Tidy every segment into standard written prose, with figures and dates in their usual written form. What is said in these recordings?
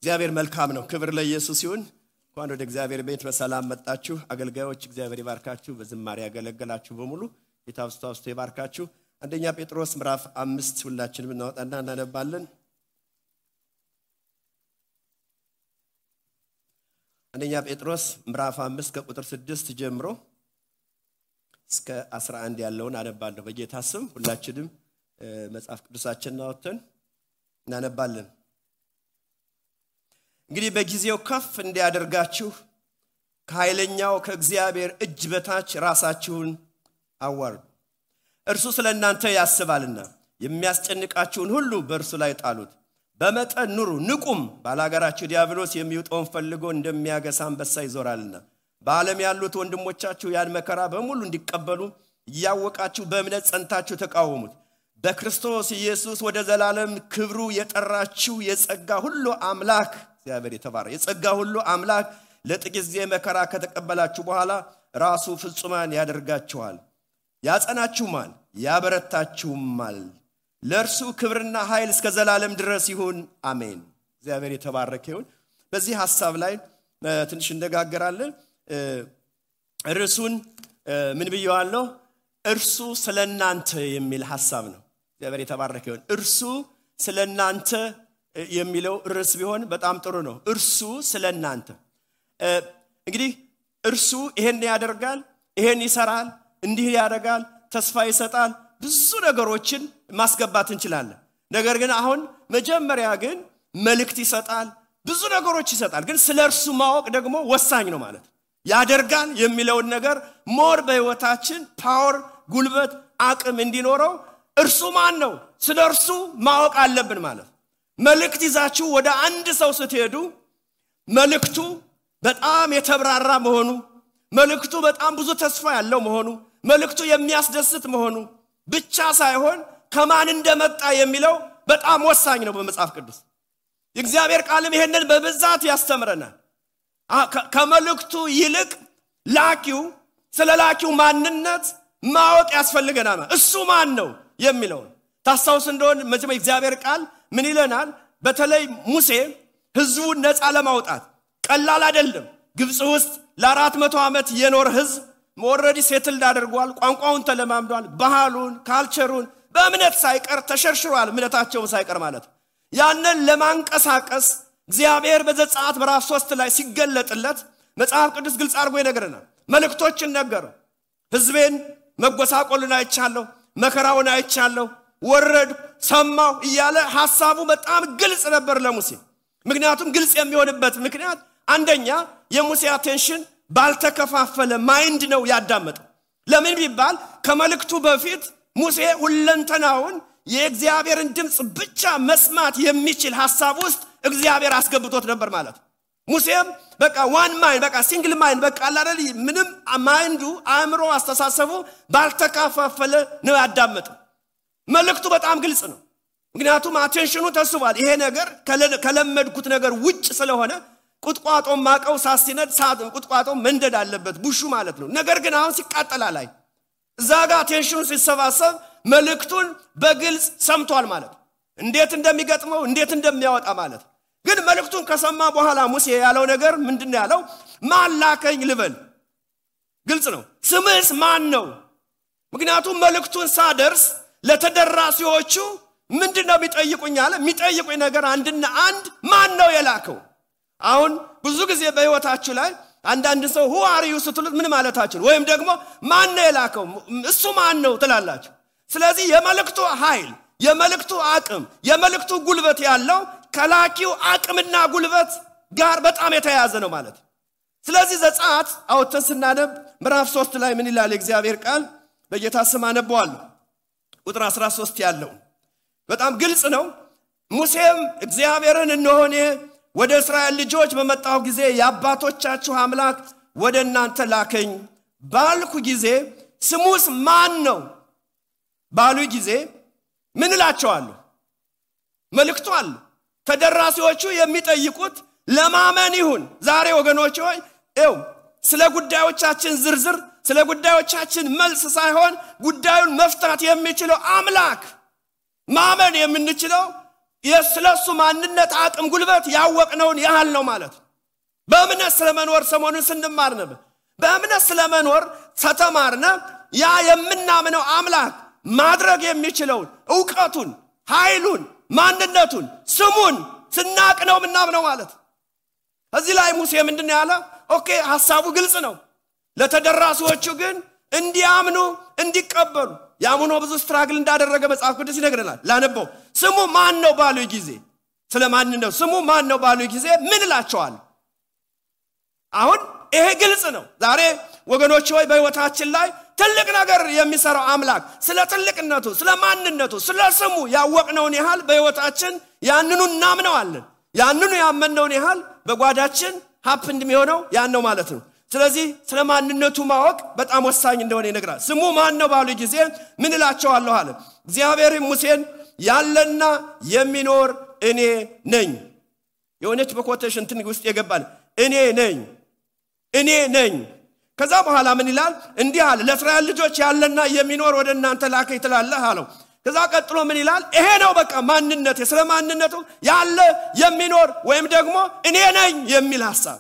እግዚአብሔር መልካም ነው። ክብር ለኢየሱስ ይሁን። እንኳን ወደ እግዚአብሔር ቤት በሰላም መጣችሁ። አገልጋዮች እግዚአብሔር ይባርካችሁ። በዝማሬ ያገለገላችሁ በሙሉ ጌታ አብዝቶ ይባርካችሁ። አንደኛ ጴጥሮስ ምዕራፍ 5 ሁላችንም እናወጣና እናነባለን። አንደኛ ጴጥሮስ ምዕራፍ 5 ከቁጥር 6 ጀምሮ እስከ 11 ያለውን አነባለሁ። በጌታ ስም ሁላችንም መጽሐፍ ቅዱሳችንን አውጥተን እናነባለን። እንግዲህ በጊዜው ከፍ እንዲያደርጋችሁ ከኃይለኛው ከእግዚአብሔር እጅ በታች ራሳችሁን አዋርዱ። እርሱ ስለእናንተ ያስባልና የሚያስጨንቃችሁን ሁሉ በእርሱ ላይ ጣሉት። በመጠን ኑሩ፣ ንቁም። ባላጋራችሁ ዲያብሎስ የሚውጠውን ፈልጎ እንደሚያገሳ አንበሳ ይዞራልና። በዓለም ያሉት ወንድሞቻችሁ ያን መከራ በሙሉ እንዲቀበሉ እያወቃችሁ በእምነት ጸንታችሁ ተቃወሙት። በክርስቶስ ኢየሱስ ወደ ዘላለም ክብሩ የጠራችሁ የጸጋ ሁሉ አምላክ እግዚአብሔር የተባረከ የጸጋ ሁሉ አምላክ ለጥቂት ጊዜ መከራ ከተቀበላችሁ በኋላ ራሱ ፍጹማን ያደርጋችኋል፣ ያጸናችሁማል፣ ያበረታችሁማል። ለእርሱ ክብርና ኃይል እስከ ዘላለም ድረስ ይሁን፣ አሜን። እግዚአብሔር የተባረከ ይሁን። በዚህ ሐሳብ ላይ ትንሽ እንነጋገራለን። ርዕሱን ምን ብየዋለሁ? እርሱ ስለናንተ የሚል ሐሳብ ነው። እግዚአብሔር የተባረከ ይሁን። እርሱ ስለናንተ የሚለው ርዕስ ቢሆን በጣም ጥሩ ነው። እርሱ ስለናንተ እንግዲህ እርሱ ይሄን ያደርጋል፣ ይሄን ይሰራል፣ እንዲህ ያደርጋል፣ ተስፋ ይሰጣል፣ ብዙ ነገሮችን ማስገባት እንችላለን። ነገር ግን አሁን መጀመሪያ ግን መልእክት ይሰጣል፣ ብዙ ነገሮች ይሰጣል። ግን ስለርሱ ማወቅ ደግሞ ወሳኝ ነው ማለት ያደርጋል የሚለውን ነገር ሞር በህይወታችን ፓወር፣ ጉልበት፣ አቅም እንዲኖረው እርሱ ማን ነው ስለርሱ ማወቅ አለብን ማለት። መልእክት ይዛችሁ ወደ አንድ ሰው ስትሄዱ መልእክቱ በጣም የተብራራ መሆኑ፣ መልእክቱ በጣም ብዙ ተስፋ ያለው መሆኑ፣ መልእክቱ የሚያስደስት መሆኑ ብቻ ሳይሆን ከማን እንደመጣ የሚለው በጣም ወሳኝ ነው በመጽሐፍ ቅዱስ። የእግዚአብሔር ቃልም ይሄንን በብዛት ያስተምረናል። ከመልእክቱ ይልቅ ላኪው ስለ ላኪው ማንነት ማወቅ ያስፈልገናል። እሱ ማን ነው የሚለው ታስታውስ እንደሆነ መቼም የእግዚአብሔር ቃል ምን ይለናል? በተለይ ሙሴ ህዝቡን ነፃ ለማውጣት ቀላል አይደለም። ግብጽ ውስጥ ለ400 ዓመት የኖር ህዝብ ኦሬዲ ሴትልድ አድርጓል። ቋንቋውን ተለማምዷል። ባህሉን፣ ካልቸሩን በእምነት ሳይቀር ተሸርሽሯል። እምነታቸውን ሳይቀር ማለት ያንን ለማንቀሳቀስ እግዚአብሔር በዘጸአት ምዕራፍ 3 ላይ ሲገለጥለት መጽሐፍ ቅዱስ ግልጽ አድርጎ ይነግረናል። መልእክቶችን ነገረው። ህዝቤን መጎሳቆልን አይቻለሁ፣ መከራውን አይቻለሁ፣ ወረድ ሰማው እያለ ሐሳቡ በጣም ግልጽ ነበር ለሙሴ። ምክንያቱም ግልጽ የሚሆንበት ምክንያት አንደኛ የሙሴ አቴንሽን ባልተከፋፈለ ማይንድ ነው ያዳመጠው። ለምን ቢባል ከመልእክቱ በፊት ሙሴ ሁለንተናውን የእግዚአብሔርን ድምጽ ብቻ መስማት የሚችል ሐሳብ ውስጥ እግዚአብሔር አስገብቶት ነበር ማለት። ሙሴም በቃ ዋን ማይንድ በቃ ሲንግል ማይንድ በቃ አላደል ምንም ማይንዱ አእምሮ አስተሳሰቡ ባልተከፋፈለ ነው ያዳመጠው። መልእክቱ በጣም ግልጽ ነው። ምክንያቱም አቴንሽኑ ተስቧል። ይሄ ነገር ከለመድኩት ነገር ውጭ ስለሆነ ቁጥቋጦ ማቀው ሳሲነድ ሳጥን ቁጥቋጦ መንደድ አለበት ቡሹ ማለት ነው። ነገር ግን አሁን ሲቃጠላ ላይ እዛጋ አቴንሽኑ ሲሰባሰብ መልእክቱን በግልጽ ሰምቷል ማለት እንዴት እንደሚገጥመው እንዴት እንደሚያወጣ ማለት። ግን መልእክቱን ከሰማ በኋላ ሙሴ ያለው ነገር ምንድነው ያለው? ማን ላከኝ ልበል? ግልጽ ነው። ስምስ ማን ነው? ምክንያቱም መልእክቱን ሳደርስ ለተደራሲዎቹ ምንድነው የሚጠይቁኝ አለ። የሚጠይቁኝ ነገር አንድና አንድ ማን ነው የላከው? አሁን ብዙ ጊዜ በህይወታችሁ ላይ አንዳንድ ሰው who are you ስትሉት ምን ማለታችሁ ወይም ደግሞ ማን ነው የላከው እሱ ማን ነው ትላላችሁ። ስለዚህ የመልእክቱ ኃይል፣ የመልእክቱ አቅም፣ የመልእክቱ ጉልበት ያለው ከላኪው አቅምና ጉልበት ጋር በጣም የተያያዘ ነው ማለት። ስለዚህ ዘጸአት አውጥተን ስናነብ ምዕራፍ 3 ላይ ምን ይላል የእግዚአብሔር ቃል? በጌታ ስም አነባዋለሁ። ቁጥር 13 ያለው በጣም ግልጽ ነው። ሙሴም እግዚአብሔርን እነሆኔ ወደ እስራኤል ልጆች በመጣው ጊዜ የአባቶቻችሁ አምላክ ወደ እናንተ ላከኝ ባልኩ ጊዜ ስሙስ ማን ነው ባሉ ጊዜ ምን እላቸዋለሁ? መልእክቱ አለ። ተደራሲዎቹ የሚጠይቁት ለማመን ይሁን። ዛሬ ወገኖች ሆይ ስለ ጉዳዮቻችን ዝርዝር፣ ስለ ጉዳዮቻችን መልስ ሳይሆን ጉዳዩን መፍታት የሚችለው አምላክ ማመን የምንችለው የስለሱ ማንነት አቅም ጉልበት ያወቅነውን ያህል ነው ማለት በእምነት ስለመኖር ሰሞኑን ስንማር ነበር በእምነት ስለመኖር ተተማርነ ያ የምናምነው አምላክ ማድረግ የሚችለው ዕውቀቱን ኃይሉን ማንነቱን ስሙን ስናቅነው ምናምነው ማለት እዚህ ላይ ሙሴ ምንድነው ያለ ኦኬ ሐሳቡ ግልጽ ነው ለተደራሲዎቹ ግን እንዲያምኑ እንዲቀበሉ ያምኑ ብዙ ስትራግል እንዳደረገ መጽሐፍ ቅዱስ ይነግረናል ላነበው ስሙ ማን ነው ባሉ ጊዜ ስለማን ነው ስሙ ማን ነው ባሉ ጊዜ ምን እላቸዋለሁ አሁን ይሄ ግልጽ ነው ዛሬ ወገኖች ሆይ በህይወታችን ላይ ትልቅ ነገር የሚሰራው አምላክ ስለ ትልቅነቱ ስለ ማንነቱ ስለ ስሙ ያወቅነውን ያህል በህይወታችን ያንኑ እናምነዋለን ያንኑ ያመነውን ያህል በጓዳችን ሀፕንድ የሚሆነው ያን ነው ማለት ነው ስለዚህ ስለ ማንነቱ ማወቅ በጣም ወሳኝ እንደሆነ ይነግራል ስሙ ማን ነው ባሉ ጊዜ ምን እላቸዋለሁ አለ እግዚአብሔር ሙሴን ያለና የሚኖር እኔ ነኝ የሆነች በኮቴሽን ትንሽ ውስጥ የገባል እኔ ነኝ ከዛ በኋላ ምን ይላል እንዲህ አለ ለእስራኤል ልጆች ያለና የሚኖር ወደ እናንተ ላከኝ ትላለህ አለው ከዛ ቀጥሎ ምን ይላል ይሄ ነው በቃ ማንነቱ ስለ ማንነቱ ያለ የሚኖር ወይም ደግሞ እኔ ነኝ የሚል ሐሳብ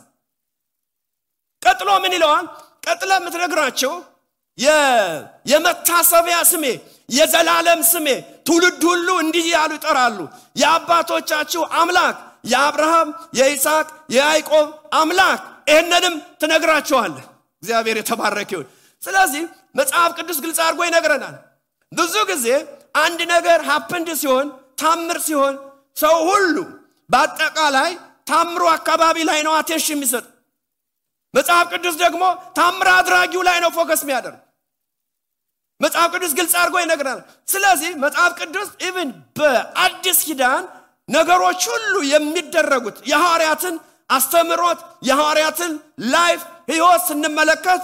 ቀጥሎ ምን ይለዋል ቀጥሎ ምትነግራቸው የመታሰቢያ ስሜ የዘላለም ስሜ ትውልድ ሁሉ እንዲህ ያሉ ይጠራሉ የአባቶቻችሁ አምላክ የአብርሃም የይስሐቅ የያዕቆብ አምላክ እነንም ትነግራቸዋለህ እግዚአብሔር የተባረከ ይሁን ስለዚህ መጽሐፍ ቅዱስ ግልጽ አድርጎ ይነግረናል ብዙ ጊዜ አንድ ነገር ሀፕንድ ሲሆን ታምር ሲሆን ሰው ሁሉ በአጠቃላይ ታምሩ አካባቢ ላይ ነው አቴንሽን የሚሰጥ መጽሐፍ ቅዱስ ደግሞ ታምር አድራጊው ላይ ነው ፎከስ የሚያደርግ መጽሐፍ ቅዱስ ግልጽ አድርጎ ይነግረናል ስለዚህ መጽሐፍ ቅዱስ ኢቭን በአዲስ ኪዳን ነገሮች ሁሉ የሚደረጉት የሐዋርያትን አስተምሮት የሐዋርያትን ላይፍ ህይወት ስንመለከት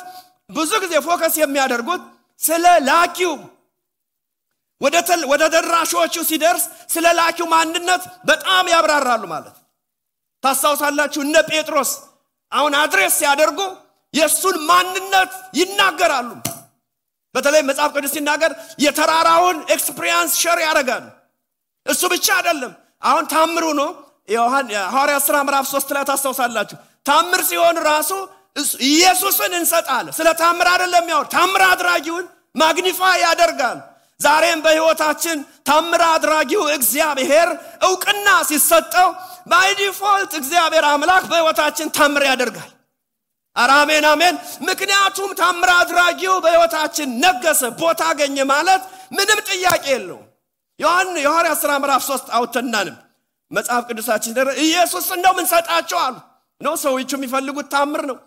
ብዙ ጊዜ ፎከስ የሚያደርጉት ስለ ላኪው ወደ ደራሾቹ ሲደርስ ስለ ላኪው ማንነት በጣም ያብራራሉ ማለት ታስታውሳላችሁ እነ ጴጥሮስ አሁን አድሬስ ሲያደርጉ የሱን ማንነት ይናገራሉ በተለይ መጽሐፍ ቅዱስ ሲናገር የተራራውን ኤክስፒሪየንስ ሼር ያደርጋሉ እሱ ብቻ አይደለም አሁን ታምሩ ነው ሐዋርያት ሥራ ምዕራፍ 3 ላይ ታስታውሳላችሁ ታምር ሲሆን ራሱ ኢየሱስን እንሰጣለን ስለ ታምር አይደለም ያው ታምር አድራጊውን ማግኒፋይ ያደርጋል ዛሬም በህይወታችን ታምር አድራጊው እግዚአብሔር ዕውቅና ሲሰጠው ባይ ዲፎልት እግዚአብሔር አምላክ በህይወታችን ታምር ያደርጋል አሜን አሜን ምክንያቱም ታምር አድራጊው በህይወታችን ነገሰ ቦታ አገኘ ማለት ምንም ጥያቄ የለውም ሐዋርያት ሥራ ምዕራፍ 3 አውተናንም መጽሐፍ ቅዱሳችን ኢየሱስ እንደው ምን ሰጣቸው አሉ ነው ሰዎች የሚፈልጉት ታምር ነው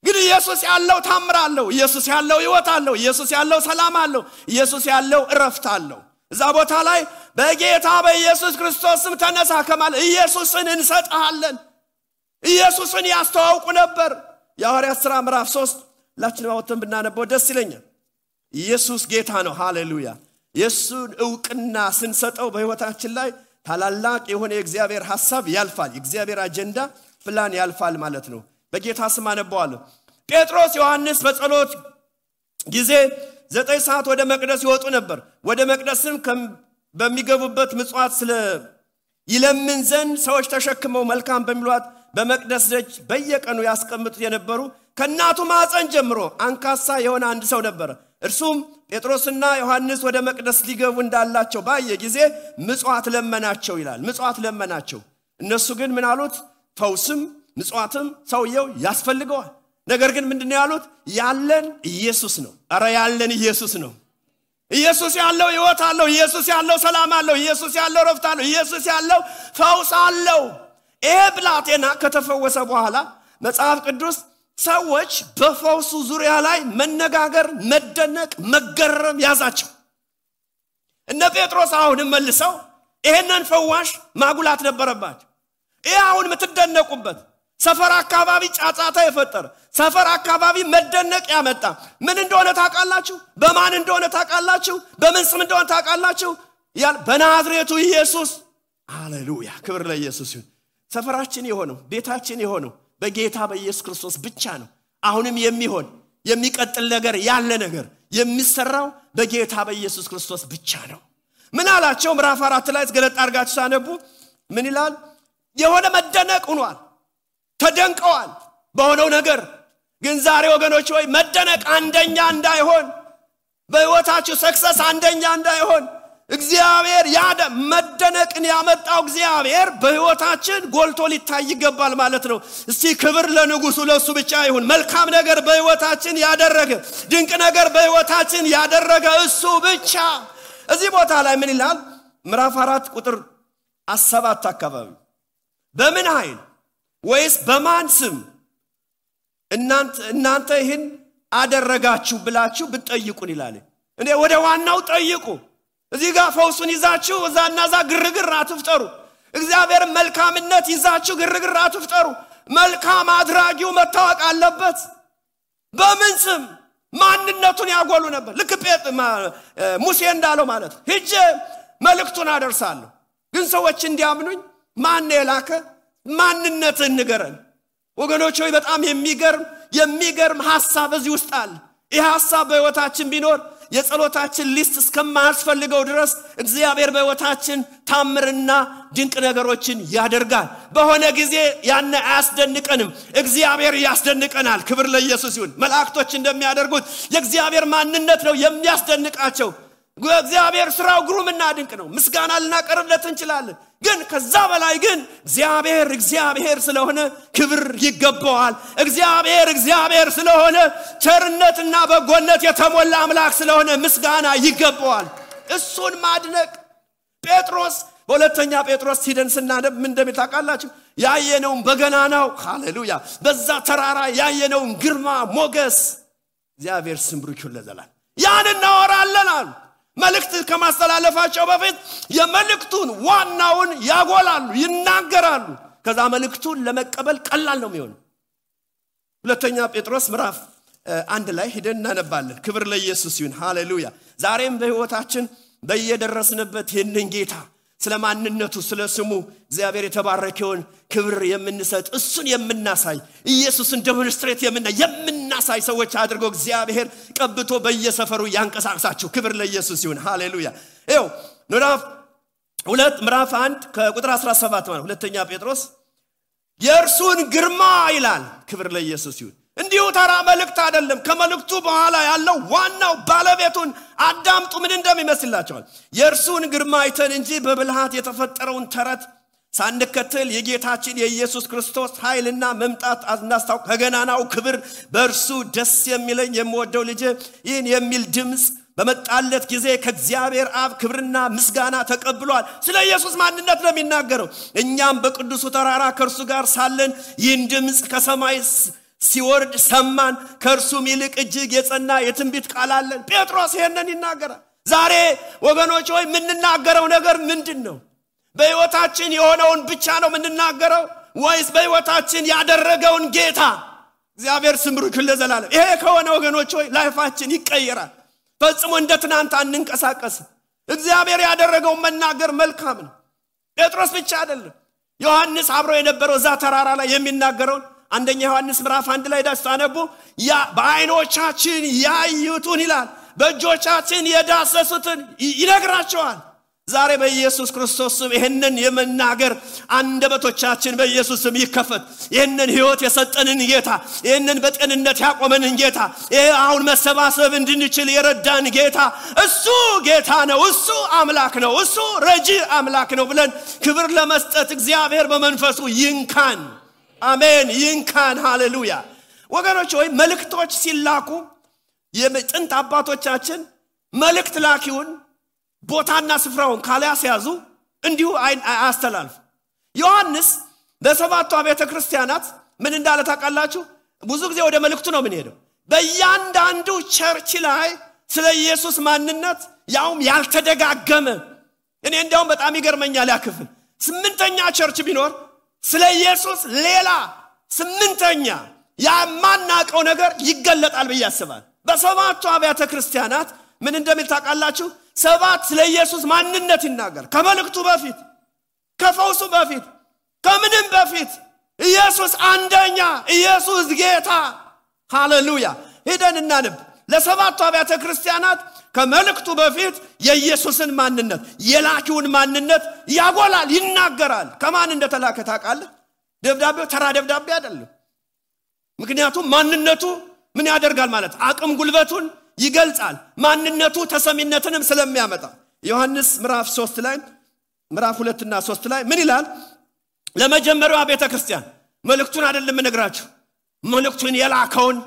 ግን ኢየሱስ ያለው ታምር አለው ኢየሱስ ያለው ህይወት አለው ኢየሱስ ያለው ሰላም አለው ኢየሱስ ያለው እረፍት አለው እዛ ቦታ ላይ በጌታ በኢየሱስ ክርስቶስ ስም ተነሳ ከማለት ኢየሱስን እንሰጣለን ኢየሱስን ያስተዋውቁ ነበር የሐዋርያት ሥራ ምዕራፍ 3 ላችን አውጥተን ብናነበው ደስ ይለኛል ኢየሱስ ጌታ ነው ሃሌሉያ ኢየሱስን ዕውቅና ስንሰጠው በህይወታችን ላይ ታላላቅ የሆነ የእግዚአብሔር ሐሳብ ያልፋል የእግዚአብሔር አጀንዳ ፕላን ያልፋል ማለት ነው በጌታ ስም አነበዋለሁ ጴጥሮስ ዮሐንስ በጸሎት ጊዜ 9 ሰዓት ወደ መቅደስ ይወጡ ነበር ወደ መቅደስም በሚገቡበት ምጽዋት ስለ ይለምን ዘንድ ሰዎች ተሸክመው መልካም በሚሏት በመቅደስ ደጅ በየቀኑ ያስቀምጡት የነበሩ ከናቱ ማፀን ጀምሮ አንካሳ የሆነ አንድ ሰው ነበር እርሱም ጴጥሮስና ዮሐንስ ወደ መቅደስ ሊገቡ እንዳላቸው ባየ ጊዜ ምጽዋት ለመናቸው ይላል ምጽዋት ለመናቸው እነሱ ግን ምን አሉት ፈውስም ምጽዋትም ሰውየው ያስፈልገዋል ነገር ግን ምንድነው ያሉት ያለን ኢየሱስ ነው አረ ያለን ኢየሱስ ነው ኢየሱስ ያለው ህይወት አለው ኢየሱስ ያለው ሰላም አለው ኢየሱስ ያለው ረፍት አለው ኢየሱስ ያለው ፈውስ አለው ብላቴና ከተፈወሰ በኋላ መጽሐፍ ቅዱስ ሰዎች በፈውሱ ዙሪያ ላይ መነጋገር መደነቅ መገረም ያዛቸው እነ ጴጥሮስ አሁን መልሰው ይሄንን ፈዋሽ ማጉላት ነበረባቸው አሁን ምትደነቁበት ሰፈር አካባቢ ጫጫታ የፈጠረ ሰፈር አካባቢ መደነቅ ያመጣ ምን እንደሆነ ታውቃላችሁ በማን እንደሆነ ታውቃላችሁ በምን ስም እንደሆነ ታውቃላችሁ በናዝሬቱ ኢየሱስ ሃሌሉያ ክብር ለኢየሱስ ይሁን ሰፈራችን የሆነው ቤታችን የሆነው በጌታ በኢየሱስ ክርስቶስ ብቻ ነው አሁንም የሚሆን የሚቀጥል ነገር ያለ ነገር የሚሰራው በጌታ በኢየሱስ ክርስቶስ ብቻ ነው ምን አላቸው? ምዕራፍ 4 ላይ ገለጥ አድርጋችሁ ሳነቡ ምን ይላል? የሆነ መደነቅ ሆኗል። ተደንቀዋል በሆነው ነገር። ግን ዛሬ ወገኖች ሆይ መደነቅ አንደኛ እንዳይሆን፣ በህይወታችሁ ሰክሰስ አንደኛ እንዳይሆን እግዚአብሔር መደነቅን ያመጣው እግዚአብሔር በህይወታችን ጎልቶ ሊታይ ይገባል ማለት ነው። እስቲ ክብር ለንጉሱ ለሱ ብቻ ይሁን። መልካም ነገር በህይወታችን ያደረገ፣ ድንቅ ነገር በህይወታችን ያደረገ እሱ ብቻ። እዚህ ቦታ ላይ ምን ይላል? ምዕራፍ 4 ቁጥር 7 አካባቢ በምን ኃይል ወይስ በማን ስም እናንተ ይህን አደረጋችሁ ብላችሁ ብትጠይቁን ይላል። እኔ ወደ ዋናው ጠይቁ። እዚህ ጋር ፈውሱን ይዛችሁ እዛና እዛ ግርግር አትፍጠሩ። እግዚአብሔር መልካምነት ይዛችሁ ግርግር አትፍጠሩ። መልካም አድራጊው መታወቅ አለበት። በምን ስም ማንነቱን ያጎሉ ነበር። ልክ ሙሴ እንዳለው ማለት ሂጄ መልእክቱን አደርሳለሁ፣ ግን ሰዎች እንዲያምኑኝ ማን የላከ ማንነትን ንገረን። ወገኖች ሆይ በጣም የሚገርም ሐሳብ እዚህ ውስጥ አለ። ይህ ሐሳብ በህይወታችን ቢኖር የጸሎታችን ሊስት እስከማያስፈልገው ድረስ እግዚአብሔር በህይወታችን ታምርና ድንቅ ነገሮችን ያደርጋል። በሆነ ጊዜ ያን አያስደንቀንም፣ እግዚአብሔር ያስደንቀናል። ክብር ለኢየሱስ ይሁን። መላእክቶች እንደሚያደርጉት የእግዚአብሔር ማንነት ነው የሚያስደንቃቸው። እግዚአብሔር ስራው ግሩምና ድንቅ ነው። ምስጋና ልናቀርብለት እንችላለን። ግን ከዛ በላይ ግን እግዚአብሔር ስለሆነ ክብር ይገባዋል። እግዚአብሔር ስለሆነ ቸርነትና በጎነት የተሞላ አምላክ ስለሆነ ምስጋና ይገባዋል። እሱን ማድነቅ ጴጥሮስ በሁለተኛ ጴጥሮስ ሄደን ስናነብ ምን እንደሚታቃላችሁ ያየነውን በገናናው ሃሌሉያ በዛ ተራራ ያየነውን ግርማ ሞገስ እግዚአብሔር ስም ብሩክ ይሁን ለዘላለም ያን እናወራለን አሉ። መልእክት ከማስተላለፋቸው በፊት የመልእክቱን ዋናውን ያጎላሉ፣ ይናገራሉ። ከዛ መልእክቱን ለመቀበል ቀላል ነው የሚሆነው። ሁለተኛ ጴጥሮስ ምዕራፍ 1 ላይ ሄደን እናነባለን። ክብር ለኢየሱስ ይሁን። ሃሌሉያ። ዛሬም በህይወታችን በየደረስንበት ይህንን ጌታ ስለማንነቱ ስለስሙ እግዚአብሔር የተባረከውን ክብር የምንሰጥ እሱን የምናሳይ ኢየሱስን ዴሞንስትሬት የምናሳይ ሰዎች አድርጎ እግዚአብሔር ቀብቶ በየሰፈሩ ያንቀሳቅሳችሁ። ክብር ለኢየሱስ ይሁን። ሃሌሉያ። ይኸው ምዕራፍ 1 ከቁጥር 17 ማለት ሁለተኛ ጴጥሮስ የእርሱን ግርማ ይላል። ክብር ለኢየሱስ ይሁን። እንዲሁ ተራ መልእክት አይደለም። ከመልእክቱ በኋላ ያለው ዋናው ባለቤቱን አዳምጡ ምን እንደሚመስላችኋል? የእርሱን ግርማ አይተን እንጂ በብልሃት የተፈጠረውን ተረት ሳንከተል የጌታችን የኢየሱስ ክርስቶስ ኃይልና መምጣት አናስታውቅ። ከገናናው ክብር በእርሱ ደስ የሚለኝ የምወደው ልጄ ይህን የሚል ድምፅ በመጣለት ጊዜ ከእግዚአብሔር አብ ክብርና ምስጋና ተቀብሏል። ስለ ኢየሱስ ማንነት ነው የሚናገረው። እኛም በቅዱሱ ተራራ ከእርሱ ጋር ሳለን ይህን ድምፅ ከሰማይ ሲወርድ ሰማን፣ ከእርሱም ይልቅ እጅግ የጸና የትንቢት ቃል አለን። ጴጥሮስ ይሄንን ይናገራል። ዛሬ ወገኖች ሆይ የምንናገረው ነገር ምንድን ነው? በህይወታችን የሆነውን ብቻ ነው የምንናገረው ወይስ በህይወታችን ያደረገውን ጌታ? እግዚአብሔር ስም ብሩክ ይሁን ለዘላለም። ይሄ ከሆነ ወገኖች ሆይ ላይፋችን ይቀየራል። ፈጽሞ እንደ ትናንት አንንቀሳቀስም። እግዚአብሔር ያደረገውን መናገር መልካም ነው። ጴጥሮስ ብቻ አይደለም፣ ዮሐንስ አብሮ የነበረው እዛ ተራራ ላይ የሚናገረውን አንደኛ ዮሐንስ ምዕራፍ 1 ላይ ዳስታነቡ በአይኖቻችን ያዩትን ይላል፣ በእጆቻችን የዳሰሱትን ይነግራቸዋል። ዛሬ በኢየሱስ ክርስቶስ ስም ይሄንን የመናገር አንደበቶቻችን በኢየሱስ ስም ይከፈት። ይሄንን ህይወት የሰጠንን ጌታ፣ ይሄንን በጤንነት ያቆመንን ጌታ፣ ይሄ አሁን መሰባሰብ እንድንችል የረዳን ጌታ እሱ ጌታ ነው፣ እሱ አምላክ ነው፣ እሱ ረጂ አምላክ ነው ብለን ክብር ለመስጠት እግዚአብሔር በመንፈሱ ይንካን። አሜን። ይንካን። ሃሌሉያ። ወገኖች ሆይ መልእክቶች ሲላኩ የጥንት አባቶቻችን መልእክት ላኪውን ቦታና ስፍራውን ካላያስያዙ እንዲሁ አያስተላልፉ። ዮሐንስ በሰባቱ አብያተ ክርስቲያናት ምን እንዳለ ታውቃላችሁ? ብዙ ጊዜ ወደ መልእክቱ ነው ምን ሄደው በእያንዳንዱ ቸርች ላይ ስለ ኢየሱስ ማንነት ያውም ያልተደጋገመ እኔ እንደውም በጣም ይገርመኛል። ያክፍል 8ኛ ቸርች ቢኖር ስለ ኢየሱስ ሌላ 8ኛ ያማናቀው ነገር ይገለጣል በያስባል። በሰባቱ አብያተ ክርስቲያናት ምን እንደሚል ታውቃላችሁ? 7 ስለ ኢየሱስ ማንነት ይናገር። ከመልእክቱ በፊት፣ ከፈውሱ በፊት፣ ከምንም በፊት ኢየሱስ አንደኛ፣ ኢየሱስ ጌታ። ሃሌሉያ። ሄደን እናንብ። ለሰባቱ አብያተ ክርስቲያናት ከመልእክቱ በፊት የኢየሱስን ማንነት የላኪውን ማንነት ያጎላል ይናገራል ከማን እንደተላከ ታውቃለህ ደብዳቤው ተራ ደብዳቤ አይደለም ምክንያቱም ማንነቱ ምን ያደርጋል ማለት አቅም ጉልበቱን ይገልጻል ማንነቱ ተሰሚነትንም ስለሚያመጣ ዮሐንስ ምዕራፍ 3 ላይ ምዕራፍ 2 እና 3 ላይ ምን ይላል ለመጀመሪያው ቤተክርስቲያን መልእክቱን አይደለም ነግራችሁ መልእክቱን የላከውን